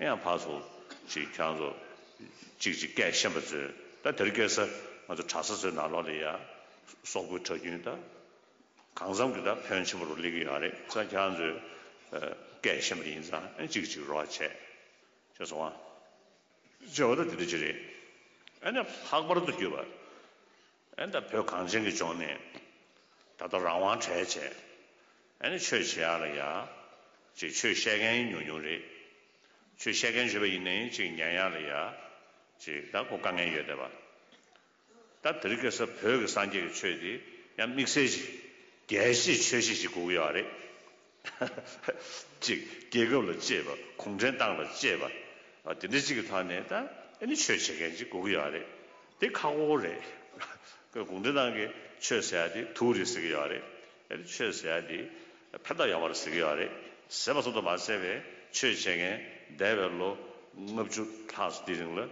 ཡང་ཕར་ཚུར་ཅིག་ཁྱེད་ཚོ་གཅིག་གཅིག་སྐད་ཤེས་པ་ཚོས་ད་དེར་སྐད་ས་ང་ཚོ་གྲྭ་ས་ཚོའི་ནང་ལོགས་ལ་ཡ་སོག་པོའི་གྲྭ་རྒྱུན་ད། གང་འཚམ་གྱི་ད་ཕོན་ཆེན་པོ་རུ་སླེབས་ཀྱི་ཡོད་རེད། ས་ཁྱེད་ཚོས་སྐད་ཤེས་པ་ཡིན་ཙང་ཨ་གཅིག་གཅིག་རོགས་བྱས། ཤེས་སོང་ཨ། བྱས་པ་ད་དེ་འདྲ་ཅིག་རེད། ཨ་ནི་ལྷག་པར་དུ་གྱུར་པ། ཨ་ནི་ད་བོད་གངས་ཅན་གྱི་ལྗོངས་ནས་ད་ལྟ་རང་དབང་བྲལ་བྱས། ཨ་ནི་ཆོས་བྱེད་ཡག་ལ་ཡ། ཅིག་ཆོས་བཤད་མཁན་ཉུང་ཉུང་རེད། ཆོས་བཤད་མཁན་བྱས་པ་ཡིན་ནའི་ཅིག་ཉན་ཡག་ལ་ཡ། ཅིག་ད་ཁོ་དཀའ་ངལ་ཡོད་བསྡད་པ། ད་དེ་རིང་ཁ་སང་བོད་ཀྱི་སངས་རྒྱས་ཀྱི་ཆོས་དེ་ཡང་དམིགས་བསལ་ཞིག་རྒྱལ་སྤྱིའི་ཆོས་གཞི་ཞིག་དགོས་ཀྱི་ཡོད་རེད། ཅིག་རྒྱལ་ཁབ་ལ་གཅེས་པ། གུང་ཁྲན་ཏང་ལ་གཅེས་པ། ཨ། དེ་འདྲ་ཅིག་གི་ཐོག་ནས་ད་ཨ་ནི་ཆོས་བྱེད་མཁན་ཅིག་དགོས་ཀྱི་ཡོད་རེད། དེ་ཁག་པོ་རེད། གུང་ཁྲན་ཏང་གིས་ཆོས་ཟེར་ཡ་དེ་དུག་རེད་ཟེར་གྱི་ཡོད་རེད། ཨ་ནི་ཆོས་ཟེར་ཡ་དེ་ཕན་ཐོགས་ཡོད་པ་རེད་ཟེར་གྱི་ཡོད་རེད། ཟེར་བ་ཙམ་དུ་མ་ཟད་པའི་ཆོས་བྱེད་མཁན་འདས་པའི་ལོ་ལྔ་བཅུ་ལྷག་ཙམ་དེ་རིང་ལ། ཨ།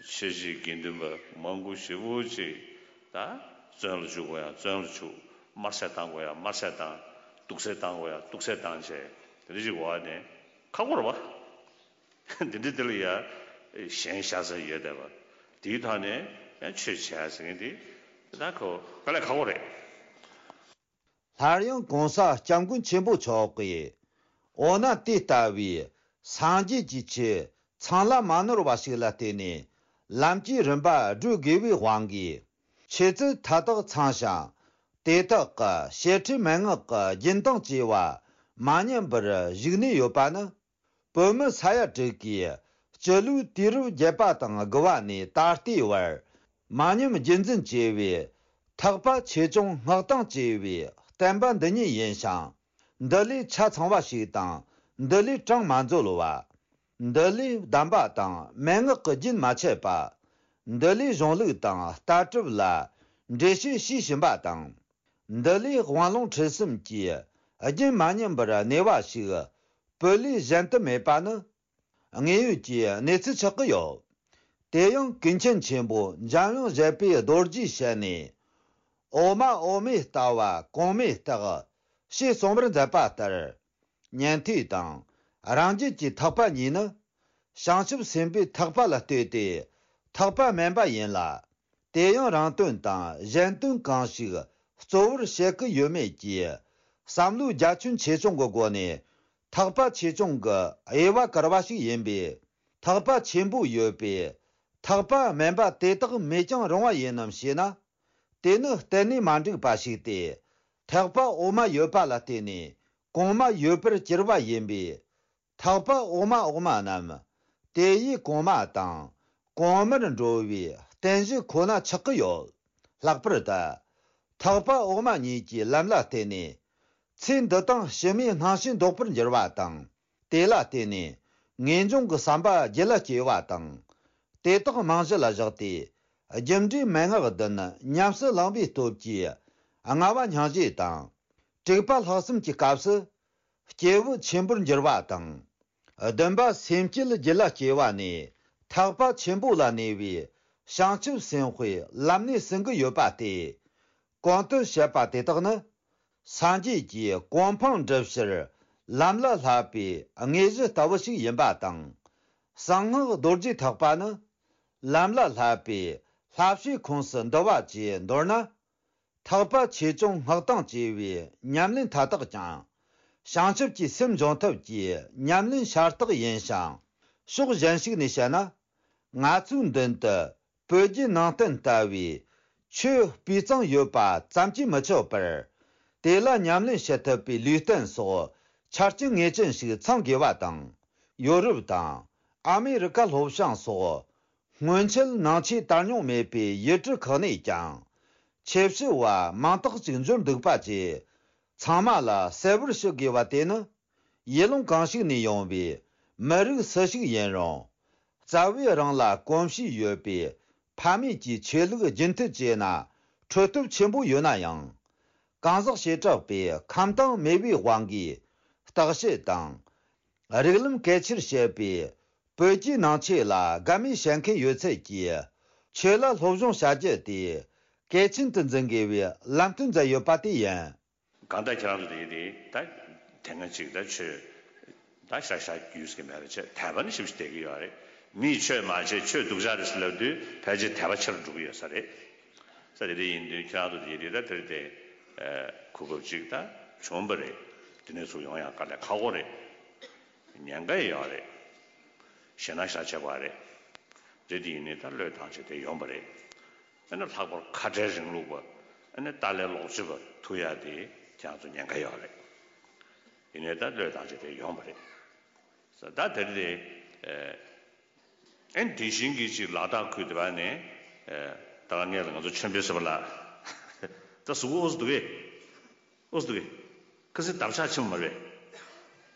ཆོས་བྱེད་དགེ་འདུན་པ་མང་པོ་ཞེ་པོ་ཅིག་ད་བཙོན་ལ་བཅུག་དགོས་ཡ་བཙོན་ལ་བཅུག་དམར་གསོད་བཏང་དགོས་ཡ་དམར་གསོད་བཏང་། དུག་སེལ་བཏང་དགོས་ཡ་དུག་སེལ་བཏང་བྱས་དེ་འདྲ་ཞིག་འོག་ནས་ཁག་པོ་རེད་པ། འདི་འདྲ་དེ་ལ་ཡ་ཞེན་ཤ་ཚ་ཡོད་བསྡད་པ། དེའི་ཐོག་ནས་ཡང་ཆོས་བྱེད་ཡ་ཟེར་མཁན་དེ་ད་ཁོ་དཀའ་ལས་ཁག་པོ་རེད། སླར་ཡང་གོང་ས་སྐྱབས་མགོན་ཆེན་པོ་མཆོག་གིས། འོ་ན་དེ་ལྟ་བུའི་སངས་རྒྱས་ཀྱི་ཆོས་ཚང་ལ་མ་ནོར་བ་ཞིག་ལ་བརྟེན་ནས་ལམ་གྱི་རིམ་པ་བགྲོད་དགོས་པའི་དབང་གིས། ཆོས་ཚུལ་མཐའ་དག་ཚང་ཞིང་། དེ་དག་གི་བཤད་ཁྲིད་མན་ངག་གི་རྒྱུན་དང་བཅས་པ་མ་ཉམས་པར་བཞུགས་ནས་ཡོད་པ་ནི། བོད་མི་ས་ཡ་དྲུག་གིས་སྤྱི་ལོའི་དུས་རབས་བརྒྱད་པ་དང་དགུ་བ་ནས་ད་ལྟའི་བར་མ་ཉམས་རྒྱུན་འཛིན་བྱས་པའི་ཐེག་པ་ཆེ་ཆུང་སྔགས་དང་བཅས་པའི་བསྟན་པ་འདི་ཉིད་ཡིན་ཞིང་། འདི་ལས་ཆ་ཚང་བ་ཞིག་དང་འདི་ལས་གྲངས་མ་འཛོལ་བ། འདི་ལས་གདམས་པ་དང་མན་ངག་གི་རྒྱུན་མ་ཆད་པ། འདི་ལས་གཞུང་ལུགས་དང་ལྟ་གྲུབ་ལ་འགྲེལ་བཤད་བྱེད་བཞིན་པ་དང་། འདི་ལས་དབང་ལུང་ཁྲིད་གསུམ་གྱི་རྒྱུན་མ་ཉམས་པར་གནས་པ་ཞིག་བོད་ལས་གཞན་དུ་མེད་པ་ནི་དངོས་ཡོད་ཀྱི་གནས་ཚུལ་ཆགས་ཀྱི་ཡོད། དེ་ཡང་ཀུན་མཁྱེན་ཆེན་པོ་འཇམ་དབྱངས་བཞད་པའི་རྡོ་རྗེའི་ཞལ་ནས། འོག་མ་འོག་མའི་ལྟ་བ་གོང་མའི་རྟགས། ཞེས་གསུངས་པར་མཛད་པ་ལྟར། ཉན་ཐོས་དང་རང་རྒྱུད་ཀྱི་ཐེག་པ་གཉིས་ནི། བྱང་ཆུབ་སེམས་དཔའི་ཐེག་པ་ལ་ལྟོས་ཏེ་ཐེག་པ་དམན་པ་ཡིན་ལ། དེ་ཡང་རང་དོན་དང་གཞན་དོན་གང་ཞིག་གཙོ་བོར་བྱེད་ཀྱི་ཡོད་མེད་ཀྱི་བསམ་བློའི་རྒྱ་ཁྱོན་ཆེ་ཆུང་གི་སྒོ་ནས་ཐེག་པ་ཆེ་ཆུང་གི་དབྱེ་བ་བཀར་བ་ཞིག་ཡིན་པས། ཐེག་པ་ཆེན་པོ་ཡོད་པས་ཐེག་པ་དམན་པ་དེ་དག་མེད་ཀྱང་རུང་བ་ཡིན་ནམ་ཞེ་ན། དེ་ནི་གཏན་ནས་མ་འགྲིག་པ་ཞིག་སྟེ། ཐེག་པ་འོག་མ་ཡོད་པ་ལ་བརྟེན་ནས་གོང་མ་ཡོད་པར་གྱུར་པ་ཡིན་པས། ཐེག་པ་འོག་མ་འོག་མ་རྣམས་དེ་ཡི་གོང་མ་དང་གོང་མར་འགྲོ་བའི་རྟེན་གཞི་ཁོ་ན་ཆགས་ཀྱི་ཡོད། ལྷག་པར་དུ་ཐེག་པ་འོག་མ་གཉིས་ཀྱི་ལམ་ལ་བརྟེན་ནས་ཚེ་འདི་དང་ཕྱི་མའི་སྣང་ཞེན་ལྡོག་པར་འགྱུར་བ་དང་། དེ་ལ་བརྟེན་ནས་ངེས་འབྱུང་གི་བསམ་པ་རྒྱུད་ལ་སྐྱེ་བ་དང་། དེ་དག་རྨང་གཞི་ལ་བཞག་སྟེ་རྒྱུ་འབྲས་མན་ངག་བདུན་ཉམས་སུ་བླངས་པའི་སྟོབས་ཀྱིས་ལྔ་པ་སྙིང་རྗེ་དང་། དྲུག་པ་ལྷག་བསམ་གྱི་སྐབས་སུ། སྐྱེས་བུ་ཆེན་པོར་འགྱུར་བ་དང་ བདུན་པ་སེམས་བསྐྱེད་རྒྱུད་ལ་སྐྱེ་བ་ནས་ཐེག་པ་ཆེན་པོ་ལ་གནས་པའི་བྱང་ཆུབ་སེམས་དཔའི་ལམ་སྣེ་ཟིན་གྱི་ཡོད་པ་སྟེ། གོང་དུ་བཤད་པ་དེ་དག་ནི། སངས་རྒྱས་ཀྱིས་གོ་འཕང་འགྲུབ་ཕྱིར་ལམ་ལ་བསླབ་པའི་དངོས་གཞི་ལྟ་བུ་ཞིག་ཡིན་པ་དང་། གསང་སྔགས་རྡོ་རྗེ་ཐེག་པ་ནི། ལམ་ལ་བསླབ་པའི་བསླབ་བྱའི་ཁོངས་སུ་འདུ་བ་བཅས་མདོར་ན། ཐེག་པ་ཆེ་ཆུང་སྔགས་དང་བཅས་པའི་ཉམས་ལེན་མཐའ་དག་ཀྱང་། བྱང་ཆུབ་ཀྱི་སེམས་འབྱུང་ཐབས་ཀྱི་ཉམས་ལེན་ཤ་སྟག་ཡིན་ཞིང་། ཕྱོགས་གཞན་ཞིག་ནས་བཤད་ན། ང་ཚོའི་མདུན་དུ་བོད་བརྒྱུད་ནང་བསྟན་ལྟ་བུའི་ཆོས་སྤུས་གཙང་ཡོད་པ་ཙམ་གྱིས་མི་ཆོག་པར། དེ་ལ་ཉམས་ལེན་བྱེད་ཐུབ་པའི་ལུས་རྟེན་སོགས་ཆ་རྐྱེན་ངེས་ཅན་ཞིག་ཚང་དགོས་པ་དང་། ཡོ་རོབ་དང་ཨ་མེ་རི་ཀ་ལྷོ་བྱང་སོགས། སྔོན་ཆད་ནང་ཆོས་དར་མྱོང་མེད་པའི་ཡུལ་གྲུ་ཁག་ནས་ཀྱང་། ཆོས་ཞུ་བ་མང་དག་ཅིག་འབྱོར་འདུག་པ་བཅས། ཚང་མ་ལ་གསལ་བོར་ཞུ་དགོས་པ་དེ་ནི། ཡུལ་ལུང་གང་ཞིག་ནས་ཡོང་བའི་མི་རིགས་སུ་ཞིག་ཡིན་རུང་། རྩ་བའི་རང་ལ་གོམས་གཤིས་ཡོད་པའི་ཕ་མེས་ཀྱི་ཆོས་ལུགས་རྒྱུན་མཐུད་བྱས་ན་འཕྲོད་སྟོབས་ཆེན་པོ་ཡོད་ན་ཡང་། གང་ཟག་བྱེ་བྲག་པའི་ཁམས་དྭངས་མེས་པོའི་དབང་གིས་བརྟག་དཔྱད་དང་། རིགས་ལམ་གལ་ཆེར་བཤད་པའི་བོད་ཀྱི་ནང་ཆོས་ལ་དགའ་མོས་བྱེད་མཁན་ཡོད་ཚད་ཀྱིས་ཆོས་ལ་སློབ་སྦྱོང་བྱ་རྒྱུ་དེ་གལ་ཆེན་དུ་འཛིན་དགོས་པའི་ལམ་སྟོན་མཛད་ཡོད་པ་དེ་ཡིན། གང་ལྟར་ཁྱེད་རང་ཚོ་དེ་དེ་ད་དེ་སྔ་ཅིག་ད་ཆོས་ད་ཤ་ཤ་རྒྱུས་ཀྱི་མེད་པ་བྱས་དད་པ་ནི་ཞིབ་ཞིབ་བསྡད་ཀྱི་ཡོད་རེད། མིས་ཆོས་མ་བྱེད་ཆོས་སྡུག་ཅག་རེད་ཟེར་ལབ་དུས་ཕལ་ཆེར་དད་པ་ཆེ་རུ་འགྲོ་གི་ཡོད་ས་རེད། ས་དེ་དེ་ཡིན་དུས་ཁྱེད་རང་ཚོ་དེ་དེ་ད་དེར་དེ་གོ་སྐབས་ཅིག་ད་བྱུང་བ་རེད། དེ་ནས་ཚུར་ཡོང་ཡང་དཀའ་ལས་ཁག་པོ་རེད། ཉེན་ཁ་ཡོད་རེད། ཞེད་སྣང་ཤ་ཆེ་བ་རེད། རེད་དེ་ཡིན་ནི་ད་བློས་བཏང་བྱས་དེ་ཡོང་བ་རེད། ཨ་ནི་ལྷག་པར་ཁ་བྲལ་རིང་ལུགས་པ། ཨ་ནི་ཏཱ་ལའི་ལོག་སྤྱོད་པ་ཐུག་ཡ་དེ་ཁྱེད་རང་ཚོ་ཉེན་ཁ་ཡོད་རེད། ཡིན་ནའི་ད་བློས་བཏང་བྱས་དེ་ཡོང་བ་རེད། ས་ད་དེར་དེ། ཨ་ནི་དེ་བཞིན་གྱི་ཅིག་ལ་དྭགས་ཁུལ་དེ་བ་ནས། ད་ལ་ངས་ལ་ང་ཚོ་ཆོས་འཕེལ་ཟེར་བ་ལ། ད་གཟུགས་པོ་ཨོ་ཙི་འདུག་གས། ཨོ་ཙི་འདུག་གས། ཁ་སང་འདབ་ཆགས་ཆེན་པོ་མ་རེད།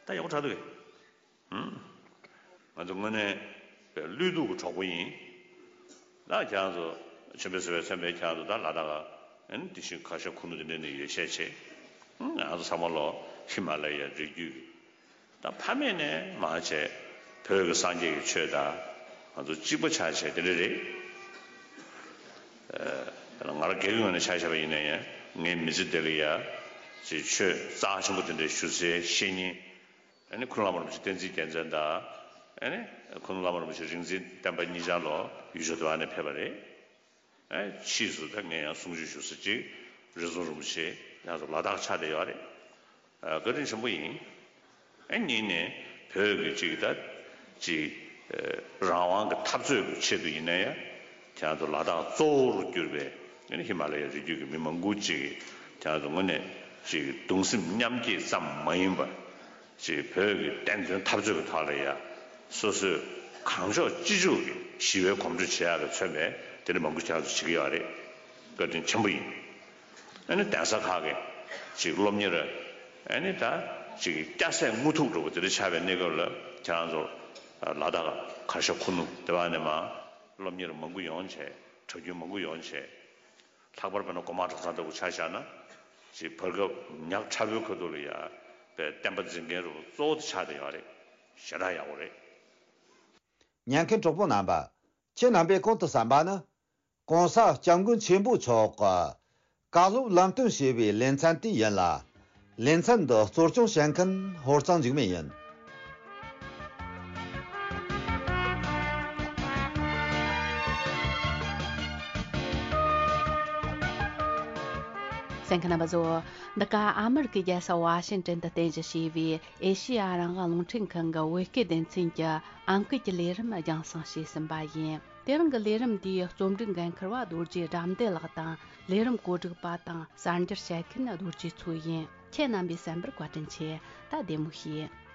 ད་ཡག་པོ་དྲག་འདུག་གས། ང་ཚོ་དངོས་གནས་བློས་གཏོང་གི་གྲོགས་པོ་ཡིན། ད་ཁྱེད་རང་ཚོ་ཆེན་པོའི་ཟེར་བའི་མཚན་པའི་ཁྱེད་རང་ཚོ་ད་ལ་དྭགས་ཨ་ནི་དེ་བཞིན་ཁ་ཤས་ཁུ་ནུ་དེ་འདྲ་ནས་ཡོད་ཤས་ཆེ། ང་ཚོ་ཚང་མ་ལོ་ཧི་མ་ལ་ཡའི་རི་རྒྱུད་ཀྱི་ད་ཕ་མེས་ནས་མར་བྱས་བོད་ཀྱི་སངས་རྒྱས་ཀྱི་ཆོས་དང་ང་ཚོ་གཅིག་པ་ཆགས་བྱས་དེ་འདྲ་རེད། ང་རང་སྒེར་གྱི་ངོས་ནས་ཆ་བཞག་པ་ཡིན་ན་ཡང་ངའི་མི་ཚེ་འདི་ལ་ཡ་ཅིག་ཆོས་རྩ་ཆེན་པོ་དེ་འདྲ་ཞུ་སའི་བཤེས་གཉེན། ཨ་ནི་ཁུ་ནུ་བླ་མ་རིན་པོ་ཆེ་བསྟན་འཛིན་རྒྱལ་མཚན་དང་། ཨ་ནི་ཁུ་ནུ་བླ་མ་རིན་པོ་ཆེ་རིག་འཛིན་བསྟན་པ་གཉིས་ཆར་ལོ་ཡུལ་ཕྱོགས་དེ་བ་ནས་ཕེབས་པ་རེད། ཨ་ཕྱིས་སུ་ད་ངས་ཡང་གསུང་ཆོས་ཞུ་ས་ཅིག་རི་རྫོང་རིན་པོ་ཆེ་ཡང་སུ་ལ་དྭགས་ཆགས་བསྡད་ཡོད་རེད། ཨ་བཀའ་དྲིན་ཆེན་པོ་ཡིན། ཨ་གཉིས་ནས་བོད་ཀྱི་ཅིག་ད་ཅིག་རང་དབང་གི་འཐབ་རྩོད་ཀྱི་ཆེད་དུ་ཡིན་ན་ཡང་ཁྱེད་རང་ཚོ་ལ་དྭགས་གཙོ་བོར་གྱུར་པའི་ཨ་ནི་ཧི་མ་ལ་ཡའི་རི་རྒྱུད་ཀྱི་མི་མང་པོ་ཅིག་ཁྱེད་རང་ཚོ་དངོས་གནས་ཅིག་གདུང་སེམས་མཉམ་སྐྱེད་ཙམ་མ་ཡིན་པར། ཅིག་བོད་ཀྱི་བདེན་དོན་འཐབ་རྩོད་ཀྱི་ཐོག་ལ་ཡ། སོ་སོས་གང་ལྕོགས་ཅི་ལྕོགས་ཀྱི་ཞི་བའི་གོམ་བགྲོད་བྱེད་ཡག་ལ་མཚོན་པའི་དེ་འདྲ་མང་པོ་ཁྱེད་རང་ཚོ་བྱེད་ཀྱི་ཡོད་རེད། བཀའ་དྲིན་ཆེན་པོ་ཡིན། ཨ་ནི་གདན་ས་ཁག་གི་ཅིག་སློབ་གཉེར། ཨ་ནི་ད་ཅིག་སྐྱ་སེར་དངོས་ཐུག་འགྲོ་བ་དེ་འདྲ་ཆགས་པའི་གནས་སྐབས་ལ་ཁྱེད་རང་ཚོ་ལ་དྭགས་གར་ཞ་ཁུ་ནུ་དེ་བ་ནས་མ་སློབ་གཉེར་མང་པོ་ཡོང་བྱས་གྲྭ་རྒྱུན་མང་པོ་ཡོང་བྱས། ལྷག་པར་དཔེར་ན་གོང་མ་གྲྭ་ཚང་ལྟ་བུ་ཆ་བཞག་ན། ཅིག་བར་སྐབས་ཉག་ཕྲ་བོའི་ཁ་ཐུག་ལ་ཡ་པའི་བསྟན་པ་འཛིན་མཁན་རུ་གཙོ་བོ་དེ་ཆགས་བསྡད་ཡོད་རེད། ཞེ་དྲག་ཡག་པོ་རེད། ཉན་མཁན་གྲོགས་པོ་རྣམ་པ། ཁྱེད་རྣམ་པས་གོང་དུ་གསན་པ་ནི། ༸གོང་ས་༸སྐྱབས་མགོན་ཆེན་པོ་མཆོག་གི་བཀའ་སློབ་ལམ་སྟོན་ཞེས་པའི་ལེ་ཚན་དེ་ཡིན་ལ། ལེ་ཚན་འདི་གཙོ་སྐྱོང་བྱེད་མཁན་ཧོར་གཙང་འཇིགས་མེད་ཡིན། གསན་མཁན་རྣམ་པ་ཚོ། འདི་ག་ཨ་མི་རི་ཀའི་རྒྱལ་ས་ཝ་ཤིང་ཏོན་དུ་རྟེན་གཞི་བྱས་པའི་ཨེ་ཤེ་ཡ་རང་དབང་རླུང་འཕྲིན་ཁང་གི་བོད་སྐད་སྡེ་ཚན་གྱི་ཨང་ཀི་གི་ལས་རིམ་རྒྱང་སྲིང་བྱས་ཟིན་པ་ཡིན། དེ་རིང་གི་ལས་རིམ་འདིའི་རྩོམ་སྒྲིག་འགན་འཁུར་བ་རྡོ་རྗེ་དགྲ་འདུལ་ལགས་དང་། ལས་རིམ་གོ་སྒྲིག་པ་དང་གསར་འགྱུར་བཤད་མཁན་རྡོ་རྗེ་མཚོ་ཡིན། ཁྱེད་རྣམ་པས་གསན་པར་བཀའ་དྲིན་ཆེ། ད་བདེ་མོ་བྱོས།